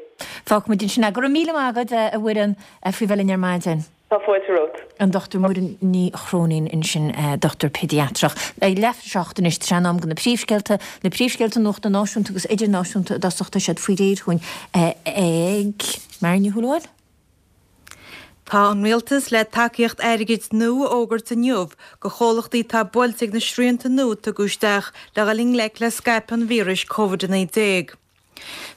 Fágfaimid ansin é. Go raibh míle maith agat, a Mhuireann, faoi bheith linn ar maidin. Tá fáilte romhat. An Dr Muireann Ní Chróinín ansin, dochtúir péidiatrach. Ag leath tar éis a hocht anois, tá sé in am do na príomhscéalta, na príomhscéalta nuachta náisiúnta agus idirnáisiúnta i dtosach, tá siad faoi réir chugainn ag Máire Ní Shúilleabháin. Tá an Rialtas le tacaíocht airgid nua a fhógairt inniu do chomhlachtaí atá buailte ag na srianta nua a tugadh isteach le dhul i ngleic le scaipeadh an víris Covid-19.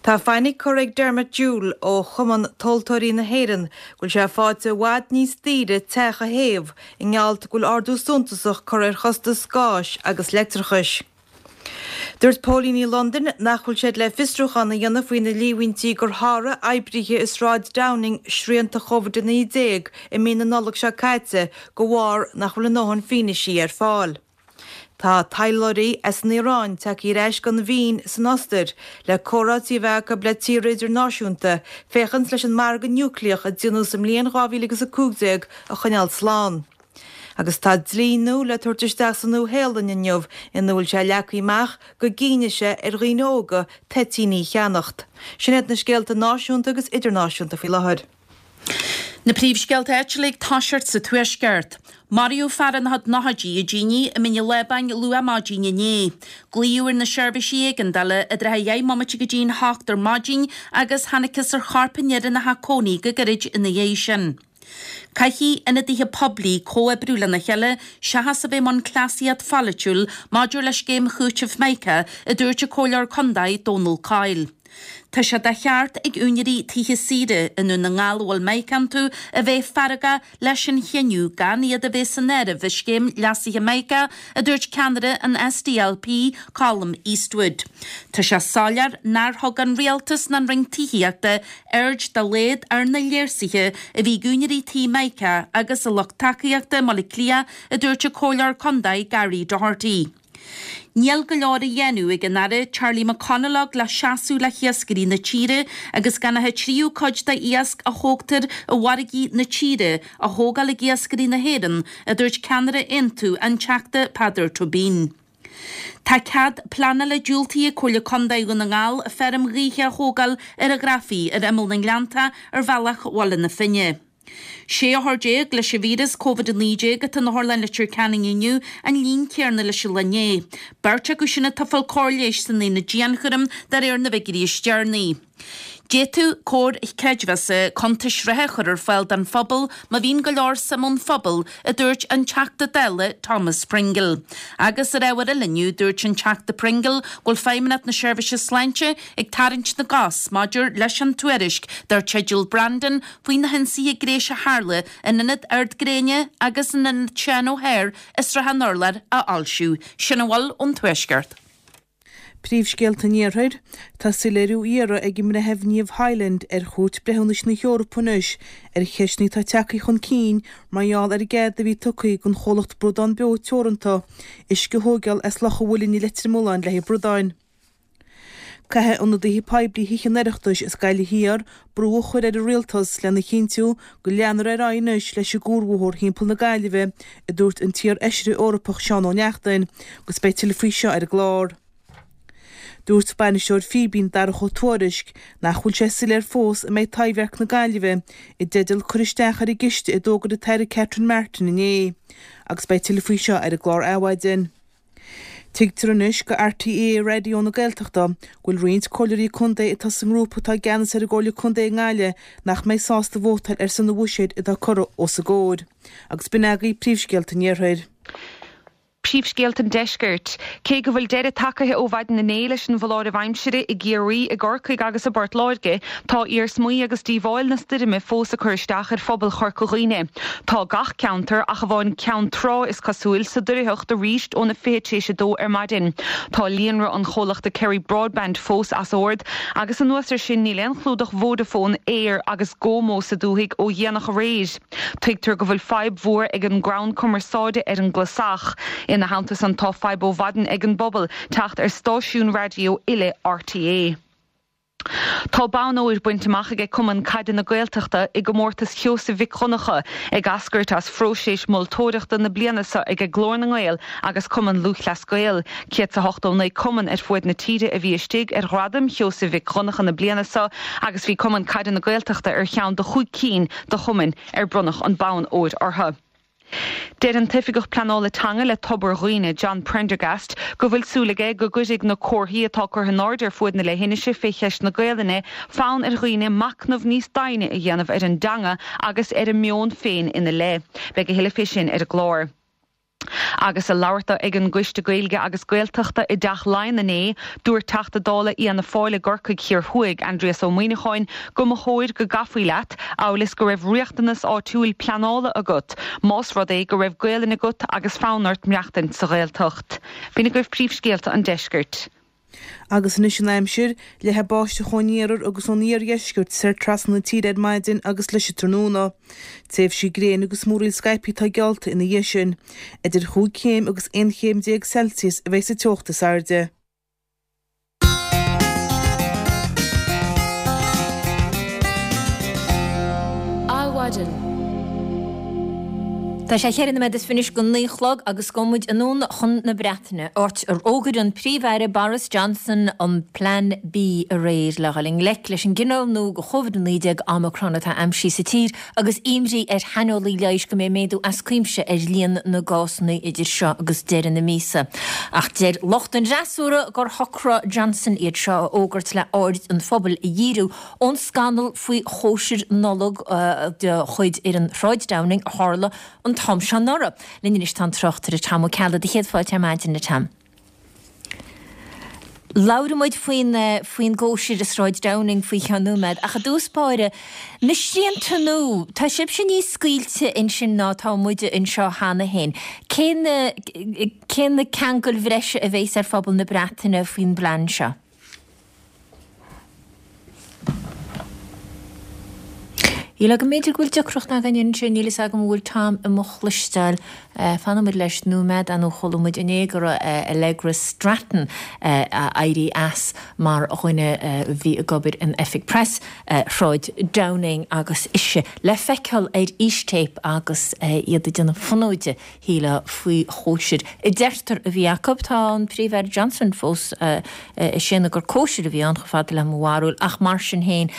Tá fainic curtha ag Dermot Jewell ó Chumann Tomhaltóirí na hÉireann go bhfuil sé faighte i bhfad níos daoire teach a théamh i ngeall go bhfuil ardú suntasach curtha ar chostas gáis agus leictreachais. Dúirt póilíní Londain nach bhfuil siad le fiosrúchán a dhéanamh faoi na líomhaintí gur sháraigh oibrithe i Sráid Downing srianta Covid-19 i mí na Nollag seo caite de bharr nach bhfuil a ndóthain fianaisí ar fáil. Tá taidhleoirí as an Iaráin tagtha ar ais gon Vín san Ostair le comhráití a bheith acu le tíortha idirnáisiúnta féachaint leis an margadh núicléach a déanadh sa mbliain 2015 a choinneáil slán. Agus tá dlí nua le tabhairt isteach sa Nua-Shéalainn inniu ina bhfuil sé leagtha amach go gcinnfidh sé ar dhaoine óga toitíní a cheannacht. Sin iad na scéalta náisiúnta agus idirnáisiúnta faoi láthair. Na príomhscéalta áitiúla ag toiseacht sa Tuaisceart. Maraíodh fear ina chuid nóchaidí i dtine i mBinn an Lábáin luath maidin inné. Glaodh ar na seirbhísí éigeandála i dtrátha dheich mbomaite go dtí'n hocht ar maidin agus thángthas ar chorp an fhir ina theach cónaí go gairid ina dhiaidh sin. Caithfidh ionadaithe poiblí comhoibriú lena chéile seachas a bheith i mbun cleasaíocht pholaitiúil maidir le scéim chúitimh Mica, a dúirt an Comhairleoir Condae Dónal Coyle. Tá sé de cheart ag úinéirí tithe saoire i nDún na nGall a bhfuil Mica iontu a bheith feargach leis an chinneadh gan iad a bheith san áireamh i scéim leasaithe Mica, a dúirt ceannaire an SDLP, Colum Eastwood. Tá sé soiléir nár thug an Rialtas ná an Roinn Tithíochta aird dá laghad ar na léirsuithe a bhí ag úinéirí tí Mica agus a lucht tacaíochta i mBaile Átha Cliath, a dúirt an Comhairleoir Condae Gary Doherty. Níl go leor á dhéanamh ag an Aire Charlie McConalogue le seasamh le hiascairí na tíre agus gan ach an tríú cuid de iasc a thógtar i bhfarraigí na tíre á thógáil ag iascairí na hÉireann, a dúirt ceannaire Aontú, an Teachta Peadar Tóibín. Tá cead pleanála diúltaithe ag Comhairle Condae Dhún na nGall feirm ghaoithe a thógáil ar an Ghrafaidh ar imeall na nGleannta ar bhealach Bhaile na Finne. 16 othar leis an víreas Covid-19 atá in Otharlann Leitir Ceanainn inniu, an líon céanna leis an lá inné. Beirt acu sin atá ag fáil cóir leighis san aonad dianchúraim de réir na bhfigiúirí is deireanaí. D'fhéadfadh comhair chreidmheasa cuntais reatha a chur ar fáil don phobal má bhíonn go leor suim ón phobal, a dúirt an Teachta Dála Thomas Pringle. Agus ar ábhar eile inniu, dúirt an Teachta Pringle go bhfuil Feidhmeannacht na Seirbhíse Sláinte ag tarraingt na gcos maidir leis an tuairisc dar teideal Brandon faoi na hionsaithe gnéis a tharla in Ionad Ard Gréine agus in Ionad Seán O'Hare i Srath an Urláir a fhoilsiú. Sin a bhfuil ón Tuaisceart. Príomhscéalta an Iarthair, Tá soiléiriú á iarraidh ag an mBreitheamh Niamh Hyland ar Chúirt Breithiúnais na hEorpa anois ar cheisteanna atá tagtha chun cinn mar gheall ar an gcead a bhí tugtha don chomhlacht Bradán Beo Teoranta uisce a thóigeáil as Loch an Mhuilinn i Leitir Mealláin le haghaidh bradáin. Caithfidh ionadaithe poiblí Thithe an Oireachtais as Gaillimh Thiar brú a chur ar an Rialtas lena chinntiú go leanfar ar aghaidh anois leis an gcuarbhóthar thimpeall na Gaillimhe, a dúirt an t-iar-fheisire Eorpach Seán Ó Neachtain, agus beidh tuilleadh faoi seo ar an gclár. Dúirt bainisteoir Fíbín, Darach Ó Tuairisg, nach bhfuil sé soiléir fós an mbeidh Taibhdhearc na Gaillimhe i dteideal cur isteach ar an gciste a d'fhógair an tAire Catherine Martin inné. Agus beidh tuilleadh faoi seo ar an gclár Adhmhaidin. Tuigtear anois go RTÉ Raidió na Gaeltachta go bhfuil roinnt comhairleoirí contae atá sa ngrúpa atá i gceannas ar an gComhairle Contae i nGaillimh nach mbeidh sásta vótáil ar son an bhuiséid atá curtha os a gcomhair. Agus b'in agaibh príomhscéalta an Iarthair. Príomhscéalta an Deiscirt. Cé go bhfuil deireadh tagaithe ó mhaidin inné leis an bhfoláireamh aimsire i gCiarraí, i gCorcaigh agus i bPort Láirge, tá iarsmaí agus díobháil na stoirme fós ag cur isteach ar phobal Chorca Dhuibhne. Tá gach ceantar, ach amháin Ceann Trá is cosúil, sa doircheacht arís óna 2:40 ar maidin. Tá líonra an chomhlachta Kerry Broadband fós as ord agus anuas air sin níl aon chlúdach Vodafone, Eir agus GoMo sa dúthaigh ó dhéanach aréir. Tuigtear go bhfuil fadhb mhór ag an gcrann cumarsáide ar an gClasach. Ina theannta san tá fadhb ó mhaidin ag an bpobal teacht ar stáisiúin raidió uile RTÉ. Tá bonn óir bainte amach aige Cumann Caide na Gaeltachta i gcomórtas Sheosaimh Mhic Dhonncha, ag eascairt as phróiseas moltóireachta na bliana seo aige Glór na nGael agus Cumann Lúthchleas Gael. 189 cumann ar fuaid na tíre a bhí istigh ar Ghradaim Sheosaimh Mhic Dhonncha na bliana seo agus bhí Cumann Caide na Gaeltachta ar cheann de chúig cinn de chumainn ar bronnadh an bonn óir orthu. Deir an tOifigeach Pleanála Teanga le Tobar Dhuibhne, John Prendergast, go bhfuil súil aige go gcuirfidh na comharthaí atá curtha in airde ar fuaid na leithinise fé cheist na Gaelainne fonn ar dhaoine machnamh níos doimhne a dhéanamh ar an dteanga agus ar a meon féin ina leith. Beidh a thuilleadh fé sin ar an gclár. Agus ag labhairt dó ag an gCoiste Gaeilge agus Gaeltachta i dTeach Laighean inné, dúirt Teachta Dála Fhianna Fáil i gCorcaigh Thiar Thuaidh, Aindrias Ó Muimhneacháin, go mba chóir go gcaithfí leat, amhail is go raibh riachtanas áitiúil pleanála agat, más rud é go raibh Gaelainn agat agus fonn ort maireachtaint sa Ghaeltacht. B'in agaibh príomhscéalta an deiscirt. Agus anois an aimsir, Leathfaidh báisteach ón iarthar agus ón iardheisceart soir trasna na tíre ar maidin agus leis an tráthnóna. Tréimhsí gréine agus múraíl scaipthe atá geallta ina dhiaidh sin. Idir chúig chéim agus 11 chéim Celsius a bheidh sa teocht is airde. Adhmhaidin. Tá sé cheithre nóiméad is fiche anois go naoi a chlog agus gabhfaidh muid anonn chun na Breataine, áit ar fhógair an Príomh-Aire Boris Johnson an Plean B aréir le dhul i ngleic leis an gcineál nua de Chovid-19 Omicron atá aimsithe sa tír agus imní ar shaineolaí leighis go mbeidh méadú as cuimse ar líon na gcásanna idir seo agus deireadh na míosa. Ach deir lucht an fhreasúra gur shocraigh Johnson iad seo a fhógairt le aird an phobail a dhíriú ón scannal faoi chóisir Nollag de chuid fhoireann Shráid Downing a tharla an t-am seo anuraidh. Linn anois tá an tráchtaire Tom Ó Ceallaigh. Do chéad fáilte ar maidin, a Tom. Labhróidh muid faoin faoin gcóisir i Sráid Downing faoi cheann nóiméad, ach i dtús báire, na srianta nua, tá sibhse níos scaoilte ansin ná atá muide anseo cheana féin. Cé na cé na ceangail bhreise a bheas ar phobal na Breataine faoin bplean seo? Níl agam, b'fhéidir go bhfuil deacracht againn ansin, níl fhios agam an bhfuil Tom i mo chloisteáil. Fanfaidh muid leis nóiméad, ar ndóigh chuala muid inné go raibh Allegra Stratton ag éirí as mar dhuine a bhí ag obair in oifig preas Shráid Downing agus ise le feiceáil ar fhístéip agus iad ag déanamh fonóide shílfeá faoi chóisir a deirtear a bhí acu. Tá an Príomh-Aire Johnson fós ag séanadh gur cóisir a bhí ann, chomh fada le mo bharúil, ach mar sin féin,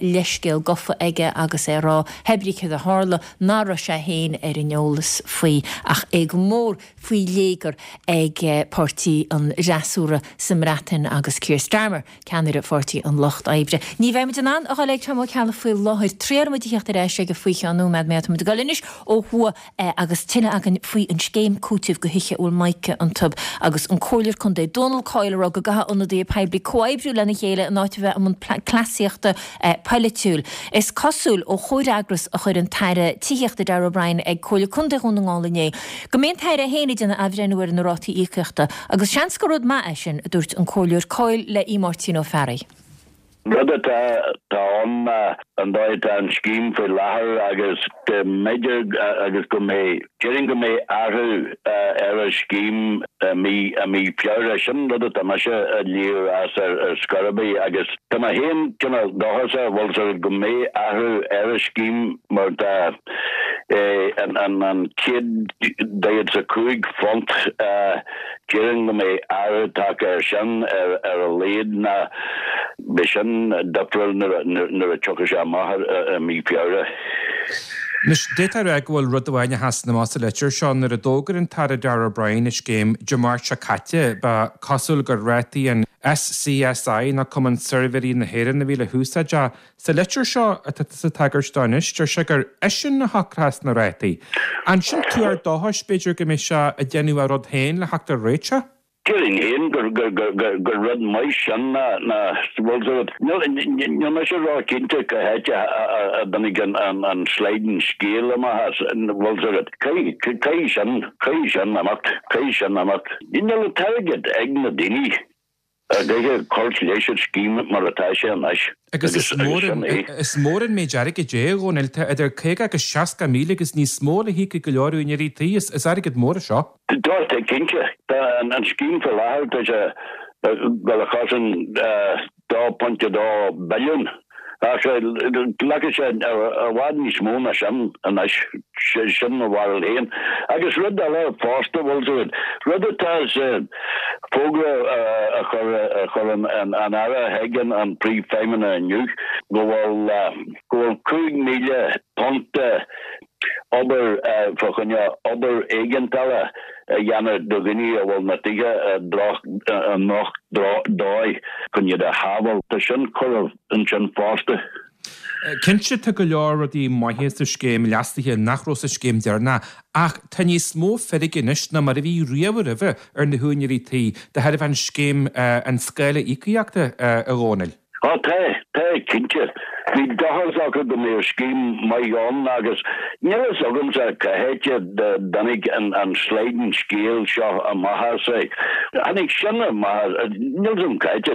leithscéal gofa aige agus é ag rá, hé brí céard a tharla, nach raibh sé féin ar an eolas faoi ach é go mór faoi léigear ag páirtí an fhreasúra sa mBreatain agus Keir Starmer. Ceannaire Pháirtí an Lucht Oibre. Ní bheidh muid in ann a dhul ag Tom Ó Ceallaigh faoi láthair. Triailfidh muid a theacht ar ais aige faoi cheann nóiméad má tá muid ag dul anois ó thuaidh agus tuilleadh againn faoi an scéim cúitimh do thithe a bhfuil mica iontu agus an Comhairleoir Contae Dónal Coyle ag rá go gcaithfidh ionadaithe poiblí comhoibriú lena chéile in áit a bheith i mbun cleasaíochta polaitiúil. Is cosúil ó chomhfhreagras a chuir an tAire Tithíochta Darragh O'Brien ag Comhairle Contae Dhún na nGall inné go mbeidh an tAire féin ag déanamh athbhreithniú ar na rátaí íocaíochta Agus seans gur rud maith é sin, a dúirt an Comhairleoir Coyle le Aodh Máirtín Ó Fearraigh. Rud atá ann ná an dóigh atá an scéim faoi láthair agus go mb'fhéidir agus go mbeidh, déarfainn go mbeidh athrú ar an scéim i mí, i mí Feabhra. Sin rud atá mise ag léamh as ar scor ar bith agus tá mé féin cineál dóchasach, bhfuil 's agat, go mbeidh athrú ar an scéim mar tá an £145 déarfainn go mbeidh athrú tagtha air sin ar a laghad ná beidh sin difriúil nuair a tiocfaidh sé amach i mí Feabhra. Anois, d'fhéadfá a rá go bhfuil rud amháin a sheasann amach sa litir seo. Nuair a d'fhógair an tAire Darragh O'Brien an scéim Dé Máirt seo caite, ba chosúil gur rátaí an SCSI, nó Cumann Suirbhéirí na hÉireann, a bhí le húsáid. Ach sa litir seo atá tusa ag tagairt dó anois, deir sé gur eisean a shocróchas na rátaí. An sin tuar dóchais, b'fhéidir, go mbeidh sé ag déanamh a rud féin le theacht ar réiteach? Déarfainn féin gur rud maith sin ná bhfuil 's agat. Níl mise ró-chinnte cá háit a dtáinig an sliding scale amach as, bhfuil 's agat. Caithfidh sin, caithfidh sin imeacht, caithfidh sin imeacht. Níl an t-airgead ag na daoine a gcaithfidh cur leis an scéim mar atá sé anois. Agus is mór an, is mór an méid airgid é, a Dhónaill. Tá idir 50 agus 60,000 agus níos mó le híoc ag go leor úinéirí tí. Is airgead mór é seo. Tá, tá cinnte. Tá an scéim faoi láthair, tá sé ag dul a chosaint 2.2 billiún ach glacfaidh sé i bhfad níos mó ná sin anois, sin mo bharúil féin. Agus rud eile fosta, bhfuil 's agat, rud atá sa bhfógra a chuir an Aire chuig an Príomhfheidhmeannach inniu, go bhfuil go bhfuil £5,000 obair fá choinne obair éigeandála a dhéanamh do dhaoine a bhfuil na tithe i ndroch-dóigh chun iad a shábháil. Tá sin curtha ansin fosta. Cinnte tá go leor rudaí maithe sa scéim leasaithe nach raibh sa scéim deireanach ach tá níos mó feirge anois ná mar a bhí riamh roimhe ar na húinéirí tí de thairbhe an scéim an scála íocaíochta, a Dhónaill. Á tá, tá, cinnte. Bhí dóchas acu go mbeadh scéim maith ann agus níl fhios agamsa cá háit a dtáinig an sliding scale seo amach as. Tháinig sin amach, níl fhios agam cá háit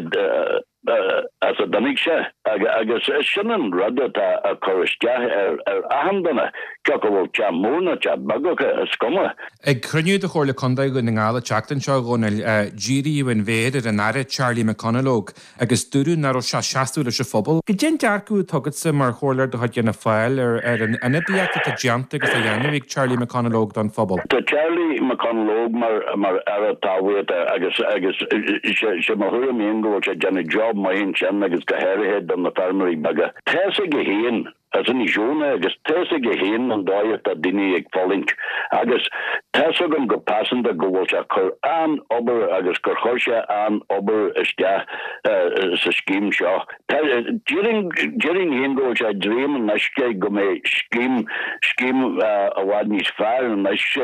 as a dtáinig sé agus sin an rud atá ag cur isteach ar achan duine, cé acu bhfuil teach mór nó teach beag acu, is cuma. Ag cruinniú de Chomhairle Contae Dhún na nGall an tseachtain seo, a Dhónaill, díríodh an mhéar ar an Aire Charlie McConalogue agus dúradh nach raibh sé ag seasamh leis an phobal. Cad é an dearcadh atá agatsa mar chomhairleoir de chuid Fhianna Fáil ar an ionadaíocht atá déanta agus á dhéanamh ag Charlie McConalogue don phobal? Tá Charlie McConalogue mar mar Aire Talmhaíochta agus agus sé mo thuairim féin go bhfuil sé ag déanamh job maith ansin agus go háirithe do na feirmeoirí beaga. Tá's aige féin As Inis Eoghain é agus tá's aige féin an dóigh atá daoine ag fulaingt agus tá's agam go pearsanta go bhfuil sé ag cur an-obair agus gur chuir sé an-obair isteach sa scéim seo. Déarfainn féin go bhfuil sé ag dréim anois go mbeidh scéim, scéim i bhfad níos fearr anois i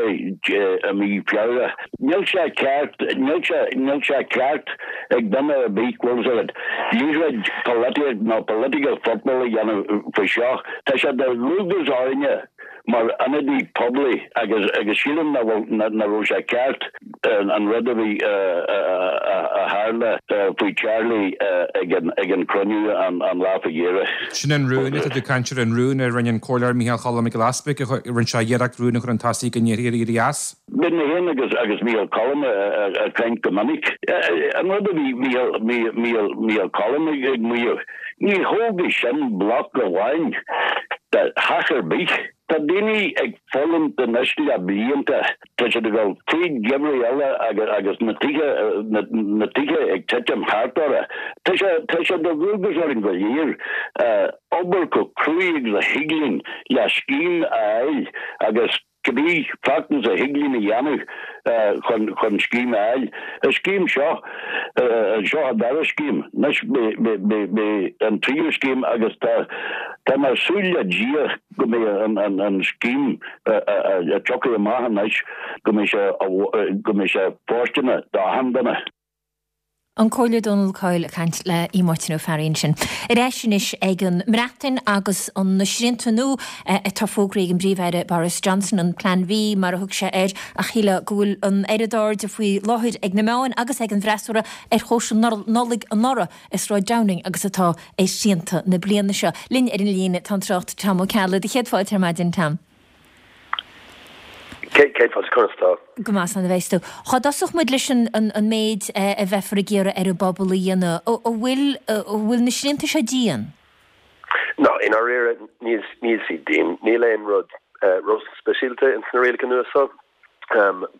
mí Feabhra. Níl sé ceart, níl sé, níl sé ceart ag duine ar bith, bhfuil 's agat, liathróid polaitíocht nó political football a dhéanamh faoi seo. Tá sé de dhualgas orainne mar ionadaí poiblí agus, agus sílim nach bhfuil, nach raibh sé ceart an rud a bhí, a tharla faoi Charlie ag an, ag an cruinniú an lá faoi dheireadh. Sin an rún atá tú ag caint air, an rún a rinne an Comhairleoir Micheál Cholm Mac Giolla Easbuig, a rinne sé iarracht rún a chur chun tosaigh go ndéarfaí ar éirí as. Bíonn mé féin agus agus Micheál Colm ag caint go minic. An rud a bhí Micheál Colm ag maíomh, ní thógfaidh sin bloc amháin de theach ar bith. Tá daoine ag fulaingt anois le blianta, tá siad ag dul fríd geimhridh eile agus na tithe na tithe ag titim thart orthu. Tá sé tá sé de dhualgas orainn go léir obair chomh cruaidh agus a thig linn le scéim a fháil agus Cibé feachtas a thig linn a dhéanamh chun chun scéim a fháil. An scéim seo, seo an dara scéim. Anois beidh an tríú scéim agus tá tá mé ag súil le Dia go mbeidh an an an scéim a tiocfaidh amach anois go mbeidh sé go mbeidh sé fóirsteanach d'achan duine. An Comhairleoir Dónal Coyle ag caint le Aodh Máirtín Ó Fearraigh ansin. Ar ais anois ag an mBreatain agus na srianta nua atá fógraithe ag an bPríomh-Aire Boris Johnson, an Plean V mar a thug sé air, ach shílfeá go bhfuil an oiread airde faoi láthair ag na meáin agus ag an bhfreasúra ar chóisir Nollag anuraidh i Sráid Downing agus atá ar shrianta na bliana seo. Linn ar an líne tá an tráchtaire Tom Ó Ceallaigh. Do chéad fáilte ar maidin, Tom. Céad fáilte, conas tá? Go maith, slán a bheas tú. Cá dtosódh muid leis an méid a bheifear ag iarraidh ar an bpobal a dhéanamh? An bhfuil, an bhfuil na srianta seo dian? No, i ndáiríre, níl, níl siad dian. Níl aon rud ró-speisialta ins na rialacha nua seo.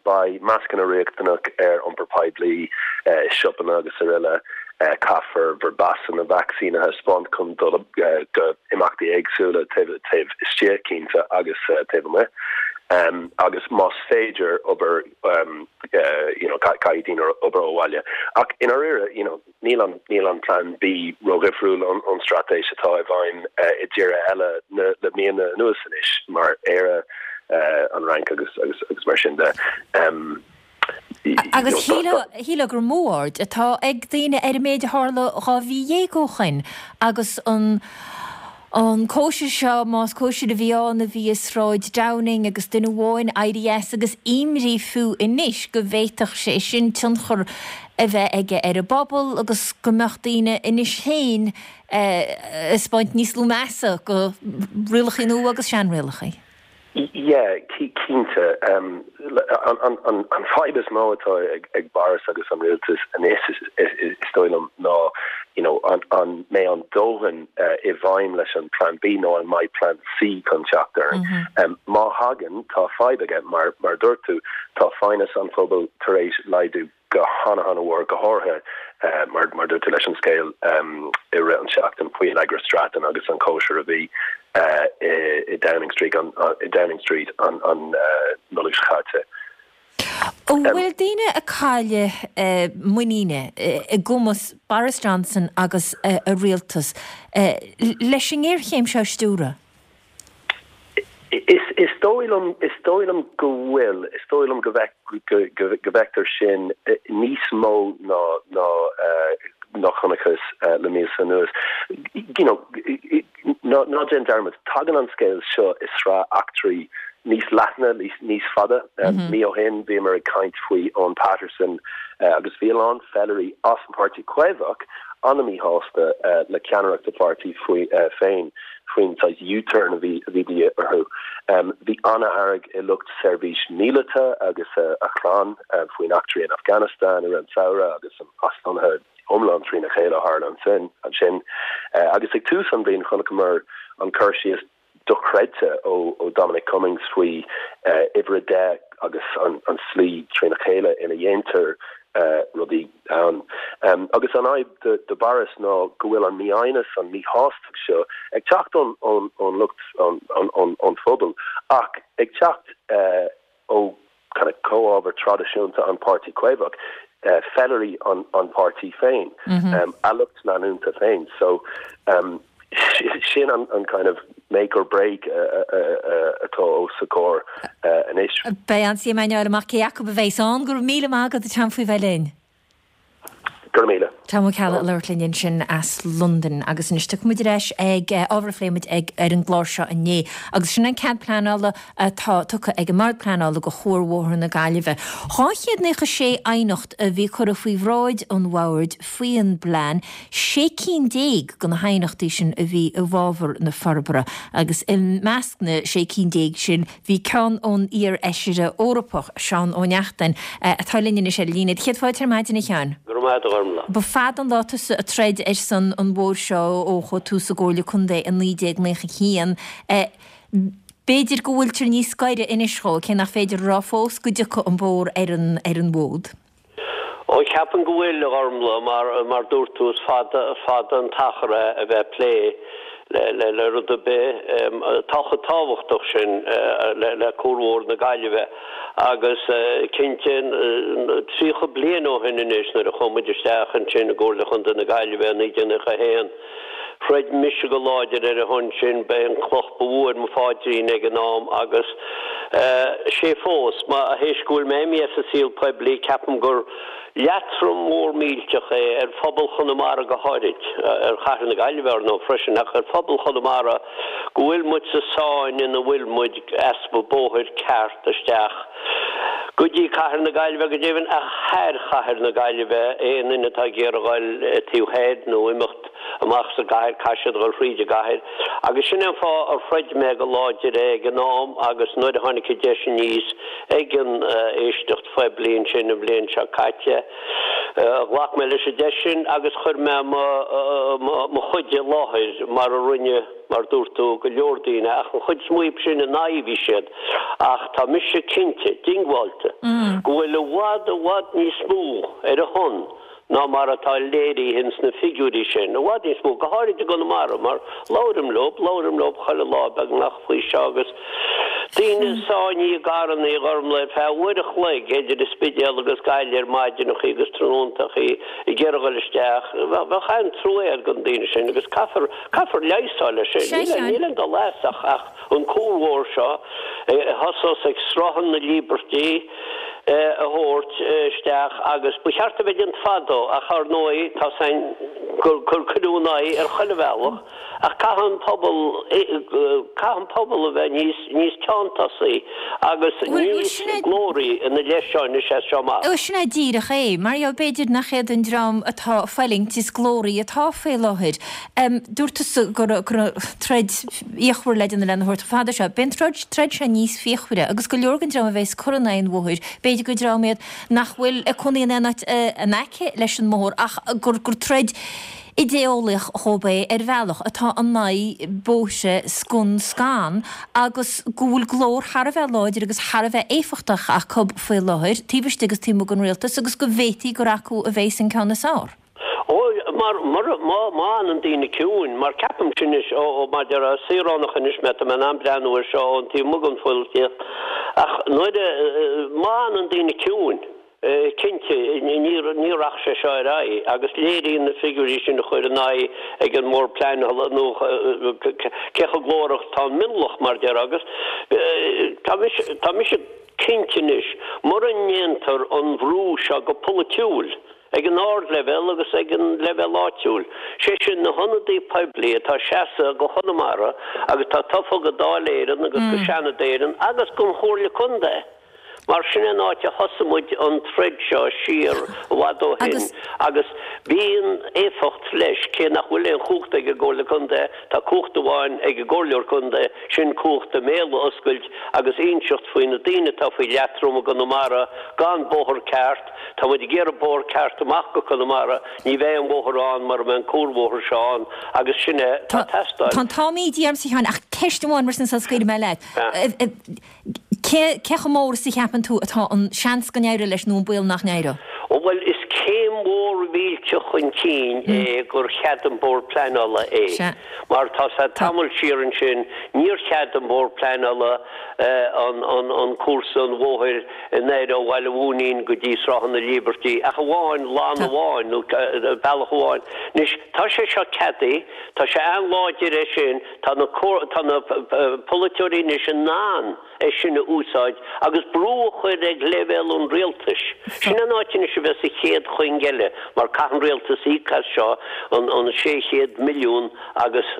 Beidh mascanna riachtanach ar iompar poiblí, i siopanna agus araile. Caithfear bhur bpasanna vacsaín a thaispeáint chun dul go imeachtaí éagsúla taobh taobh istigh cinnte agus taobh amuigh. Agus más féidir obair you know caithfidh daoine obair ó bhaile. Ach i ndáiríre you know níl an níl an Plean B ródhifriúil ón ón straitéis atá i bhfeidhm i dtíortha eile na le míonna anuas anois mar Éire, an Fhrainc agus agus agus mar sin de. Agus shílfeá gur mó aird atá ag daoine ar an méid a tharla 12 mhí ó shoin agus an an cóisir seo, más cóisir a bhí ann, a bhí i Sráid Downing agus duine amháin éirí as agus imní fiú anois go bhféadfadh sé sin tionchar a bheith aige ar an bpobal agus go mbeadh daoine anois féin ag taispeáint níos lú measa do rialacha nua agus seanrialacha. Yeah, cinnte. An fadhb is mó atá ag Boris agus an rialtas anois, is dóigh liom, ná you know an mbeidh an dóthain i bhfeidhm leis an Plan B nó an mbeidh Plan C chun teacht orainn. Má thagann, tá fadhb aige, mar a dúirt tú, tá foighneas an phobail tar éis laghdú. go hana-hana-mhór, go háirithe mar mar dúirt tú leis an scéal i rith an tseachtain faoi Allegra Stratton agus an cóisir a bhí i Downing Street an i Downing Street an an Nollaig seo caite. An bhfuil daoine ag cailleadh muiníne i gcumas Boris Johnson agus a rialtas leis an ngéarchéim seo a stiúradh? Is dóigh liom, is dóigh liom go bhfuil, is dóigh liom go go bhfeictear sin níos mó ná ná ná chonacthas le míosa anuas. You know, ná ná déan dearmad, tagann an scéal seo i sraith eachtraí níos leithne, níos fada. Mí ó shin bhíomar ag caint faoi Owen Paterson agus bhí a lán feilirí as an Páirtí Caomhach an-mhíshásta le ceannaireacht a pháirtí faoi féin. faoin saghas U-turn a bhí a bhí de dhíth orthu. Bhí an-fhearg i lucht seirbhís míleata agus a chlann faoin eachtraí in Afghanistan i rith an tsamhraidh agus an aslonnaithe iomlán trína chéile a tharla ansin. Ansin agus ag tús an bhliain chonaiceamar an cur síos dochreidte ó Dominic Cummings faoi uimhir a deich agus an slí trína chéile ina dhéantar rudaí ann. Agus an fhadhb do Boris ná go bhfuil an mífhoighneas, an míshástacht seo ag teacht ón ón lucht, ón phobal ach ag teacht ó kind of comhábhar traidisiúnta an Páirtí Caomhach, feilirí an páirtí féin, a lucht leanúnta féin. So sin an kind of make or break atá os a comhair anois. Beidh an-suim againn a fháil amach cé acu a bheas ann. Go raibh míle maith agat a Tom faoi bheith linn. Go raibh míle. Tom Ó Ceallaigh ag labhairt linn ansin as Londain. Agus anois tiocfaidh muid ar ais ag ábhar a phléigh muid ag ar an gclár seo inné. Agus sin an cead pleanála atá tugtha ag an mBord Pleanála do Chuarbhóthar na Gaillimhe. 296 aighneacht a bhí curtha faoi bhráid an Bhoird faoin bplean, 16 cinn de na haighneachtaí sin a bhí i bhfabhar na forbartha agus i measc na 16 cinn sin bhí ceann ón iar-fheisire Eorpach, Seán Ó Neachtain, atá linn anois ar an líne. Céad fáilte ar maidin, a Sheáin. Go raibh maith agat, a Ghormlaith. Ba fada an lá tusa ag troid ar son an bhóthair seo ó chuaigh tú sa gComhairle Contae i 1991. B'fhéidir go bhfuiltear níos gaire anois dhó, cé nach féidir a rá fós go dtiocfaidh an bóthar ar an ar an bhfód. Ó, ceapaim go bhfuil, a Ghormlaith, mar, mar dúirt tú, is fada, fada an t-achar é a bheith ag plé le, le, le rud ar bith atá chomh tábhachtach sin le, le Cuarbhóthar na Gaillimhe. Agus cinnte, 30 bliain ó shin anois, nuair a chuaigh muid isteach ansin i gComhairle Chontae na Gaillimhe i 1991, Throid mise go láidir ar a shon sin, ba é an cloch ba mhó ar mo pháidrín ag an am agus is é fós. Mar théis go bhfuil mé imithe as an saol poiblí, ceapaim gur leatrom mór millteach é ar phobal Chonamara go háirid, ar chathair na Gaillimhe ar ndóigh freisin, ach ar phobal Chonamara go bhfuil muid sa sáinn ina bhfuil muid, easpa bóthair ceart isteach go dtí cathair na Gaillimhe, go deimhin ach thar chathair na Gaillimhe, aon duine atá ag iarraidh a dhul taobh thoir nó imeacht amach as an gcathair, caithfidh siad a dhul thríd an gcathair. Agus sin é an fáth ar throid mé go láidir é ag an am agus nuair a tháinig an deis aníos ag an éisteacht phoiblí ansin an bhliain seo caite, ghlac mé leis an deis sin agus chuir mé mo chuid i láthair mar a rinne mar dúirt tú, go leor daoine, ach an chuid is mó díobh sin in aghaidh a bhí siad, ach tá mise cinnte, diongbháilte, go bhfuil i bhfad, i bhfad níos mó ar a shon. ná mar atá léirithe ins na figiúirí sin, i bhfad níos mó, go háirid i gConamara, mar labhraim leob, labhraim leob chuile lá beagnach faoi seo agus daoine sáinnithe i gcarrannaí a Ghormlaith ar feadh uair a chloig idir an Spidéal agus Gaillimh ar maidineachaí agus tráthnóntachaí ag iarraidh dhul isteach. Bheadh an-trua agat do na daoine sin agus caithfear, caithfear leigheas a fháil air sin. Níl, níl aon dul as ach, ach an cuarbhóthar seo a thosós ag Sruthán na Líbeirtí, a thabhairt isteach agus ba cheart a bheith déanta fadó ach ar ndóigh tá 's againn gur cuireadh ina aghaidh ar chuile bhealach ach caithfidh an pobal caithfidh an pobal a bheith níos níos teanntásaí agus níos glóraí ina leith seo anois as seo amach. Bhuel sin é díreach é. Mar gheall b'fhéidir nach iad an dream atá ag fulaingt is glóraí atá faoi láthair. Dúirt tusa go raibh troid fhíochmhar le déanamh lena thabhairt chomh fada seo. Beidh an troid troid seo níos fíochmhaire agus go leor den dream a bheas ag cur in aghaidh an bhóthair, b'fhéidir gur dream iad nach bhfuil ag cónaí in aon áit in aice leis an mbóthar ach gur gur troid idé-eolaíoch dhóibh é ar bhealach, atá in aghaidh bóithre scun scan agus go bhfuil glór thar a bheith láidir agus thar a bheith éifeachtach acu faoi láthair, taobh istigh agus taobh amuigh den rialtas agus go bhféadfaí gur acu a bheas an ceann is fearr. Ó, mar, mura, má, má fhanann daoine ciúin, mar ceapaimse anois, ó, ó, mar déarfá, saoránach anois mé, tá mé in ann breathnú air seo ón taobh amuigh den pholaitíocht, ach nuair a, má fhanann daoine ciúin, cinnte, ní, ní rachaidh sé seo ar aghaidh, agus léiríonn na figiúirí sin a chur in aghaidh ag an mBord Pleanála nó cé chomh glórach atá an mionlach, mar déarfá, agus tá mise, tá mise cinnte anois, mura ndéantar an bhrú seo go polaitiúil, ag an ardleibhéal agus ag an leibhéal áitiúil, sé sin na hionadaí poiblí atá ag seasamh go Chonamara agus atá tofa go Dáil Éireann agus go Seanad Éireann agus don Chomhairle Contae mar sin é an áit a thosaigh muid an troid seo siar i bhfad ó shin agus bíonn éifeacht leis cé nach bhfuil aon chumhacht ag an gComhairle Contae tá cumhacht amháin ag an gComhairleoir Contae sin cumhacht a mbéal a oscailt agus inseacht faoi na daoine atá faoi leatrom i gConamara gan bóthar ceart Tá muid ag iarraidh bóthar ceart amach go Conamara, ní bheidh aon bhóthar ann mura mbeidh an cuarbhóthar seo ann agus sin é atá ag teastáil. Tá an t-am ídithe ormsa a Sheáin ach ceist amháin mar sin sula scaoilfidh mé leat. Cé cé chomh mór is a cheapann tú atá an seans go n-éireoidh leis nó an baol nach n-éireoidh? Ó bhuel is céim mhór mhillteach chun cinn é gur chead an Bord Pleanála é. Mar tá sé tamall siar ansin níor chead don Bhord Pleanála an an an cúrsa an bhóthair anoir ó Bhaile Mhúinín go dtí Sruthán na Líbeirtí, ach amháin lann amháin nó bealach amháin. Anois, tá sé seo ceadaithe, tá sé an-láidir é sin, tá na tá na polaiteoirí anois in ann é sin a úsáid agus brú a chur ag leibhéal an rialtais. Sin an áit anois a bheas an chéad chuing eile mar caithfidh an rialtas íoc as seo, an 600 milliún agus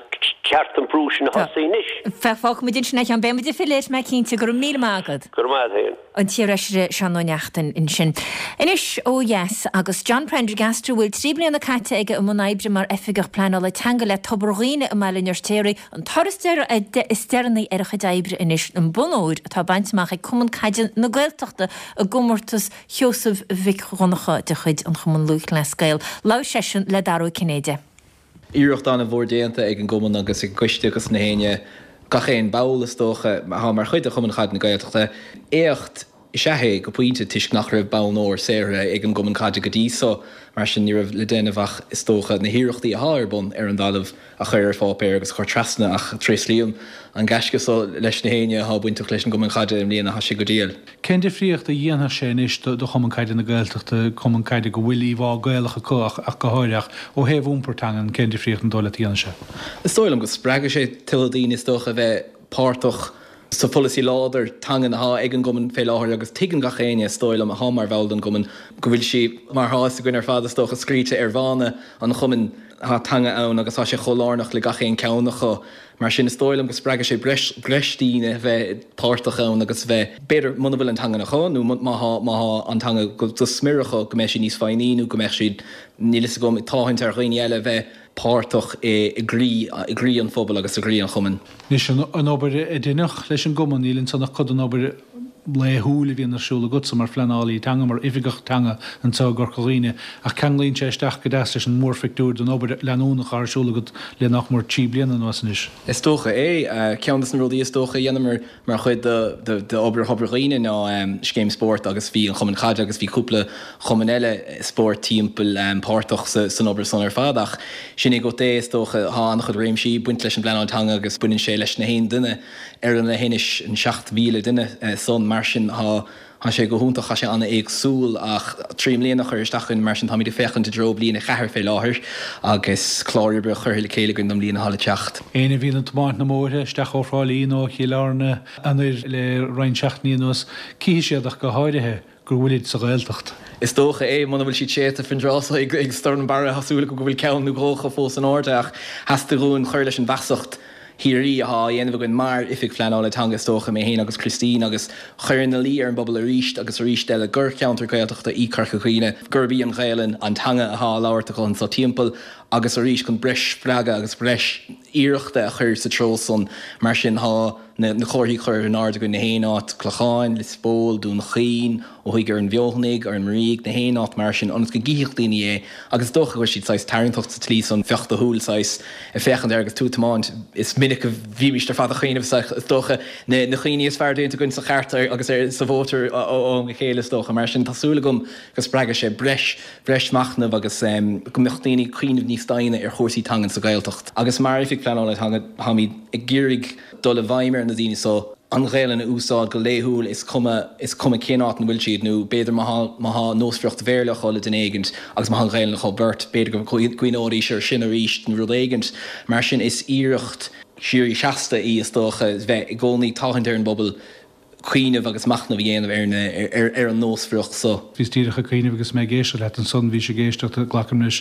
ceart an brú sin a thosaí anois. Fágfaimid ansin é a Sheáin. Beidh muid ag filleadh air, mé cinnte. Go raibh míle maith agat. Go raibh maith agat féin. An t-iarfheisire Seán Ó Neachtain ansin. Anois ó dheas agus John Prendergast, a bhfuil 3 bliana caite aige i mbun oibre mar Oifigeach Pleanála Teanga le Tobar Dhuibhne i mBaile an Fheirtéaraigh, an toradh is deireanaí ar a chuid oibre anois, an bonn óir atá bainte amach ag Cumann Caide na Gaeltachta i gcomórtas Sheosaimh Mhic Dhonncha de chuid an Chumann Lúthchleas Gael. Labhair seisean le Dara Ó Cinnéide. Iarracht an-mhór déanta ag an gCumann agus ag an gCoiste agus na héinne, gach aon ball is dócha, atá mar chuid de Chumann Caide na Gaeltachta. Éacht is ea é go pointe toisc nach raibh bonn óir saothraithe ag an gCumann Caide go dtí so, mar sin ní raibh le déanamh ach is dócha na hiarrachtaí athá ar bun ar an dtalamh a chur ar pháipéar agus a chur trasna ach tréaslaím an gaisce so leis na héinne athá bainteach leis an gCumann Caide i mbliana, thá sé go diail. Cén difríocht a dhéanfadh sé anois do Chumann Caide na Gaeltachta, cumann caide go bhfuil íomhá Gaelach acu ach go háirithe, ach ó thaobh iompar teangan, cén difríocht an dóigh leat a dhéanfaidh sé? Is dóigh liom go spreagfaidh sé tuilleadh daoine is dócha a bheith páirteach sa pholasaí láidir teangan athá ag an gcumann fé láthair agus tuigeann gach éinne, is dóigh liom, athá mar bhall den gcumann go bhfuil sí, mar thá fhios againn ar fad is dócha, scríte ar mhana an chumainn, thá teanga ann agus thá sé chomh lárnach le gach aon ceann acu. Mar sin, is dóigh liom go spreagfaidh sé breis, breis daoine a bheith páirteach ann agus a bheith, b'fhéidir, muna bhfuil an teangan acu nó má thá, má thá an teanga go, go smior acu, go mbeidh siad níos foighní nó go mbeidh siad, níl fhios agam, ag tathant ar dhaoine eile a bheith páirteach i, i gcroí, i gcroí an phobail agus i gcroí an chumainn. Anois, an, an obair a deineadh leis an gcumann, níl ansan ach cuid den obair. laethúil a bhíonn ar siúl agatsa mar phleanálaí teanga, mar oifigeach teanga anseo i gCorca Dhuibhne, ach ceanglaíonn sé isteach go deas leis an mórphictiúr den obair leanúnach atá ar siúl agat le nach mór 3 bliana anuas anois. Is dócha é. Ceann de na rudaí is dócha a dhéanamar mar chuid d'obair Thobar Dhuibhne ná scéim spóirt agus bhí an Chumann Caide agus bhí cúpla chumann eile spóirt timpeall páirteach san obair san ar fad ach sin é agat é is dócha. Tá an-chuid réimsí ag baint leis an bpleanáil teanga agus baineann sé leis na haon duine ar an leithinis, an 7,000 duine san. Mar sin tá tá sé go hiontach, tá sé an-éagsúil ach 3 mbliana curtha isteach againn mar sin táimid ag féachaint i dtreo bliain a cheathair fé láthair agus clár oibre curtha le chéile againn don mbliain atá le teacht. Éinne a bhíonn ag tiomáint na mbóithre isteach ó Thrá Lí nó ó Chill Airne anoir le roinnt seachtainí anuas, cífidh siad ach go háirithe go bhfuilid sa Ghaeltacht. Is dócha é, muna bhfuil siad séidte faoin dtráth so ag stoirm Barra, tá súil agam go bhfuil ceann nó dhó acu fós in airde ach theastaigh uainn cur leis an bhfeasacht shíoraí athá á dhéanamh againn mar Oifig Phleanála Teanga is dócha, mé féin agus Christine, agus chur ina luí ar an bpobal arís agus arís eile gur cheantar Gaeltachta í Corca Dhuibhne, gurb í an Ghaelainn an teanga athá á labhairt acu anso timpeall agus arís chun breis spreagadh agus breis iarrachta a chur sa treo san. Mar sin tá na comharthaí curtha in airde againn na haon áit, Clochán, Lios Póil, Dún Chaoin, ó thuaidh ar an bhFeothanaigh, ar an mBrígh, na haon áit mar sin, ionas go gcífeadh daoine é agus is dócha go bhfuil siad saghas tarraingteach sa tslí san, bheadh do shúil saghas ag féachaint air agus tú ag tiomáint. Is minic a bhímíst ar fad ag cuimhneamh is dócha, na cuimhní is fearr déanta againn sa chairt agus sa mhótar ó am go chéile is dócha. Mar sin tá súil agam go spreagfaidh sé breis, breis machnaimh agus go mbeadh daoine ag cuimhneamh níos doimhne ar chúrsaí teangan sa Ghaeltacht. Agus mar Oifig Pleanála Teanga táimid ag iarraidh dul i bhfeidhm ar na daoine so, an Ghaelainn a úsáid go laethúil is cuma is cuma cén áit ina bhfuil siad nó b'fhéidir má thá má thá nósmhaireacht Bhéarla acu le duine éigint agus má thá an Ghaelainn acu beirt b'fhéidir go gcuimhneoidís ar sin arís nó rud éigint mar sin is iarracht síoraí seasta í is dócha bheith i gcónaí ag tathant ar an bpobal cuimhneamh agus machnamh a dhéanamh ar na ar an nósmhaireacht so. Bhíos díreach ag cuimhneamh agus mé ag éisteacht leat ansan, bhís ag éisteacht, glacaim leis,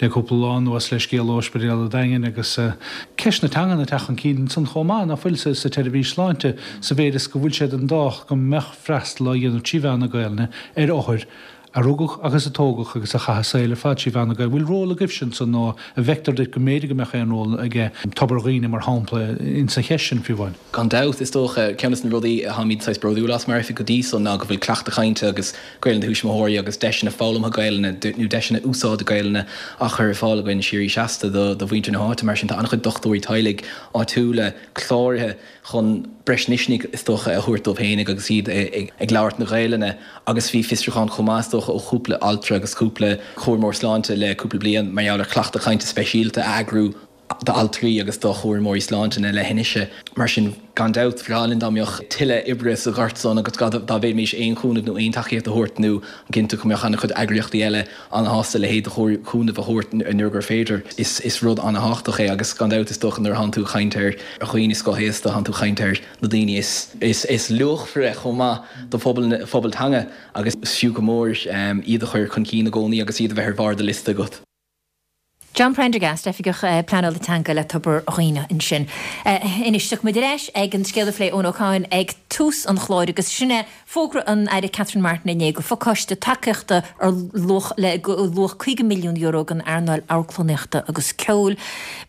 le cúpla lá anuas le scéal ó Ospidéal an Daingin agus ceist na teangan ag teacht chun cinn ansan chomh maith, ná fuil, sa tseirbhís sláinte, sa mhéid is go bhfuil sé den dóch go mbeadh freastal á dhéanamh trí mheán na Gaelainne ar othair a rugadh agus a tógadh agus a chaith a saol ar fad trí mheán na Gaeilge. Bhfuil ról agaibhse ansan nó an bhfeictear duit go mb'fhéidir go mbeadh aon ról aige Tobar Dhuibhne mar shampla insa cheist sin fiú amháin? Gan dabht, is dócha, ceann des na rudaí atáimid saghas bródúil as mar oifig go dtí so ná go bhfuil cleachtadh cainte agus Gaelainn do thuismitheoirí agus deiseanna foghlamtha Gaelainne nó deiseanna úsáide Gaelainne á chur ar fáil againn síoraí seasta do mhuintir na háite. Mar sin tá an-chuid dochtúirí teaghlaigh áitiúla cláraithe chun breis misnigh is dócha a thabhairt dóibh fhéinig agus iad ag labhairt na Gaelainne agus bhí fiosrúchán chomh maith is dócha ó chúpla altra agus cúpla cúramóir sláinte le cúpla bliain mar gheall ar chleachtadh cainte speisialta a eagrú d'altraí agus do chúramóirí sláinte na leithinise. Mar sin, gan dabht, ba bhreá linn dá mbeadh tuilleadh oibre sa ghort san agus dá bhféadfaimis aon chúnamh nó aon tacaíocht a thabhairt nó cinnte go mbeadh an-chuid eagraíochtaí eile an-shásta a leithéid de chúnamh a thabhairt nuair gur féidir. Is rud an-thábhachtach é agus gan dabht is dócha nuair atánn tú ag caint ar dhaoine scothaosta, tánn tú ag caint ar na daoine is luachmhaire chomh maith do phobal teanga agus is fiú go mór iad a chur chun cinn i gcónaí agus iad a bheith ar bharr do liosta agat. John Prendergast, Oifigeach Pleanála Teanga le Tobar Dhuibhne ansin. Anois, tiocfaidh muid ar ais ag an scéal a phléigh Eoin Ó Cadhain ag tús an chláir agus sin é fógra an Aire Catherine Martin inné go phacáiste tacaíochta ar luach le luach €50 milliún don earnáil amharclannaíochta agus ceoil.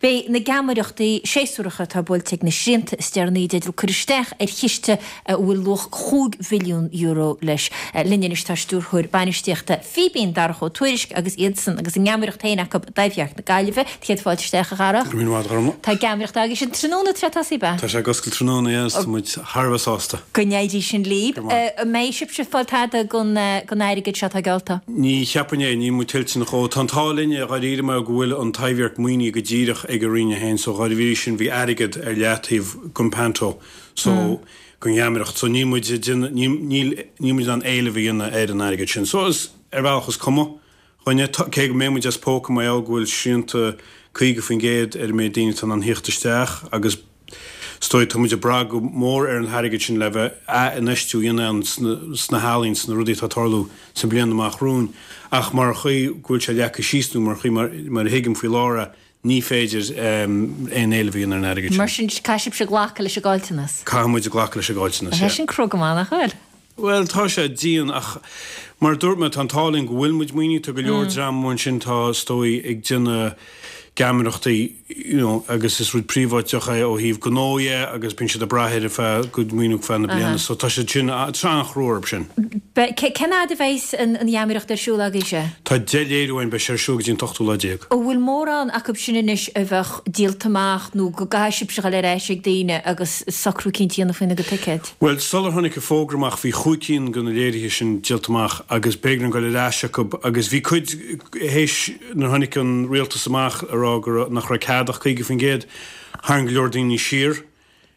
Beidh na geamaireachtaí séasúracha atá buailte ag na srianta is deireanaí i dteideal cur isteach ar chiste a bhfuil luach €5 mhilliún leis. Linn anois tá Stiúrthóir Bainistíochta Fíbín, Darach Ó Tuairisg, agus iadsan agus a ngeamaireacht féin acu i dTaibhdhearc na Gaillimhe. Céad fáilte isteach, a Dharach. Go raibh míle maith agat, a Ghormfhlaith. Tá geamaireacht agaibhse tráthnóna tar éis tosaí, ab ea? Tá sé ag oscailt tráthnóna, yeah, tá muid thar a bheith sásta. Go n-éirí sin libh. An mbeidh sibhse ag fáil tada den airgead seo atá geallta? Ní cheapfainn é, níl muid tuillteanach dhó. Tá an t-ádh linn, dháiríre, mar go bhfuil an Taibhdhearc maoinithe go díreach ag an Roinn féin, so dháiríre sin bhí airgead ar leataobh don panto. So, don gheamaireacht. So, níl muid ag déanamh, níl, níl, níl muid in ann éileamh a dhéanamh ar an airgead sin. So, is, ar bhealach is cuma dhúinne, cé go mbeidh muid as póca mar gheall go bhfuil srianta 50% ar an méid daoine atá in ann thíocht isteach agus is dóigh tá muid ag brath go mór ar an airgead sin le bheith ath-infheistiú a dhéanamh ann sna, sna healaín, sna rudaí atá ag tarlú sa mbliain amach romhainn. Ach mar chaoi go bhfuil sé leagtha síos nó mar chaoi mar, mar a thuigim faoi láthair é, Ní féidir aon éileamh a dhéanamh ar an airgead sin. Mar sin, caithfidh sibhse glacadh leis an gcaillteanas. Caithfidh muid glacadh leis an gcaillteanas, yeah. Tá sé sin crua go maith, nach bhfuil? Bhuel, tá sé dian ach mar a dúirt mé, tá an t-ádh linn go bhfuil muid maoinithe. Tá go leor dream amuigh ansin atá, is dóigh, ag déanamh. geamaireachtaí you know agus is rud príobháideach é ó thaobh gnó dhe agus bíonn siad ag brath ar a feadh gcuid maoiniú feadh na bliana so tá siad sin tá sé an-chrua orthu sin. Cén fhad a bheidhs an gheamaireacht ar siúl agaibhse? Tá 10 léiriú againn, beidh sé ar siúl go dtí an t-ochtú lá déag. An bhfuil mórán acu sin anois a bheadh díolta amach nó go gcaithfidh sibhse dhul ar ais ag daoine agus socrú eicínt a dhéanamh faoina gcuid ticéad? Bhuel, sular tháinig an fógra amach bhí chúig cinn de na léirithe sin díolta amach agus b'éigean dóinn dul ar ais acu agus bhí cuid, théis nuair a tháinig an rialtas amach ag rá go raibh, nach raibh cead ach 50%, tharraing go leor daoine siar.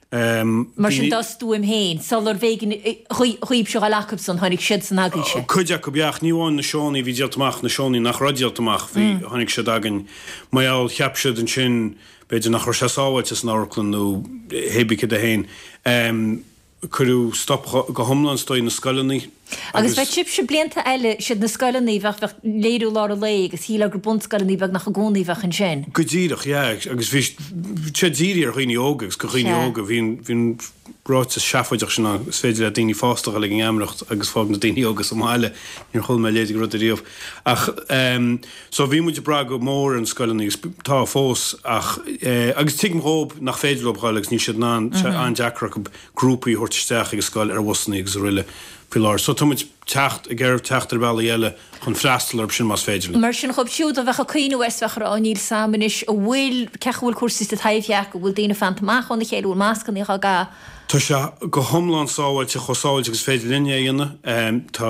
Mar sin dá stuaim féin, sular bh'éigean dhaoibhse dhul acubsan, tháinig siadsan agaibhse. Cuid acu, yeah, ach ní amháin na seónna a bhí díolta amach, na seónna nach raibh díolta amach, bhí, tháinig siad againn. Mar gheall, cheap siad ansin, b'fhéidir nach raibh sé sábháilte san amharclann nó hébí céard é féin. Cuireadh stop go hiomlán is dóigh na scoileanna Agus bheadh sibhse blianta eile, siad na scoileanna, bheadh, bheadh léiriú lár an lae agus shílfeá gur bunscoileanna beagnach i gcónaí a bheadh ansin. Go díreach, yeah, agus bhí sé dírithe ar dhaoine óga agus go dhaoine óga, bhí an, bhí an ráiteas seafóideach sin ann, is féidir le daoine fásta a dhul ag an ngeamaireacht agus fág na daoine óga sa mbaile, níor chuala mé a leithéid de rud ariamh. Ach ehm so bhí muid ag brath go mór ar na scoileanna agus tá fós ach eh agus tuigim dhóib nach féidir leo dhul agus níl siad in ann, tá sé an-deacair acu grúpaí a thabhairt isteach ag an scoil ar bhusanna agus araile faoi láthair. So tá muid teacht, ag iarraidh teacht ar bhealaí eile chun freastal orthu sin más féidir linn. Mar sin dhóibh siúd a bheadh ag cuimhneamh air 's bheadh ag rá níl 's a'm anois an bhfuil, cén chaoi a bhfuil cúrsaí sa Taibhdhearc, an bhfuil daoine ag fanacht amach óna chéile, an bhfuil mascannaí á gcaitheamh? Tá sé go hiomlán sábháilte, chomh sábháilte agus is féidir linn é a dhéanamh. Tá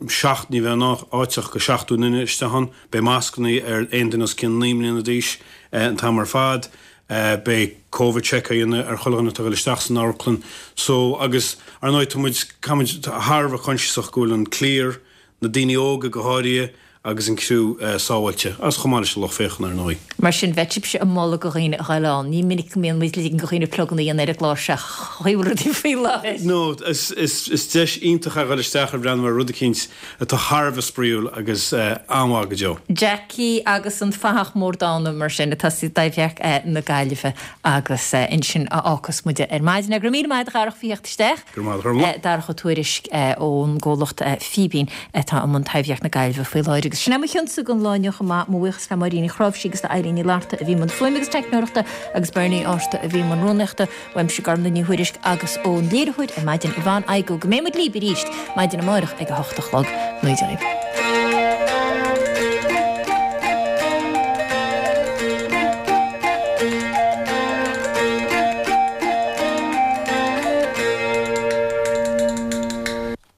seacht, ní bheidh áit ach go 70 duine isteach ann. Beidh mascannaí ar aon duine os cionn 9 mbliana d'aois an t-am ar fad. Beidh Covid check á dhéanamh ar chuile dhuine atá ag dul isteach san amharclann. So, agus, ar ndóigh, tá muid, caithfidh muid, thar a bheith coinsiasach go bhfuil an cliar, na daoine óga go háirithe, agus an criú sábháilte, agus chomh maith leis an lucht féachana, ar ndóigh. Mar sin, bheadh sibhse ag moladh do dhaoine a ghoil ann. Ní minic go mbíonn muid ag ligean do dhaoine pluganna a dhéanamh ar an gclár seo, chaoi a bhfuil rudaí faoi láthair. No, is deis iontach é a ghoil isteach ar bhreathnú ar rud eicínt atá thar a bheith spraíúil agus an-mhaith go deo. Jackie agus an Fathach Mór Dána, mar sin, atá sa Taibhdhearc na Gaillimhe agus ansin a fhágfas muid ar maidin. Go raibh míle maith agat a Dharach faoi theacht isteach. Go raibh maith agat, a Ghormfhlaith. Darach Ó Tuairisg ón gcomhlacht Fíbín atá i mbun Taibhdhearc na Gaillimhe faoi láthair. Agus sin é mo chionsa don lá inniu chomh maith. Mo bhuíochas le Máirín Ní Chráimhsí agus le Eileen Ní Fhlatharta a bhí i mbun fuaime agus teicneoireachta agus Bernie Ásta a bhí i mbun rúnaíochta. Uaimse Gormfhlaith Ní Thuairisg agus ón léiritheoir ar maidin Yvonne Igoe. Go mbeidh muid libh arís maidin amárach ag a hocht a chlog. Go dtí.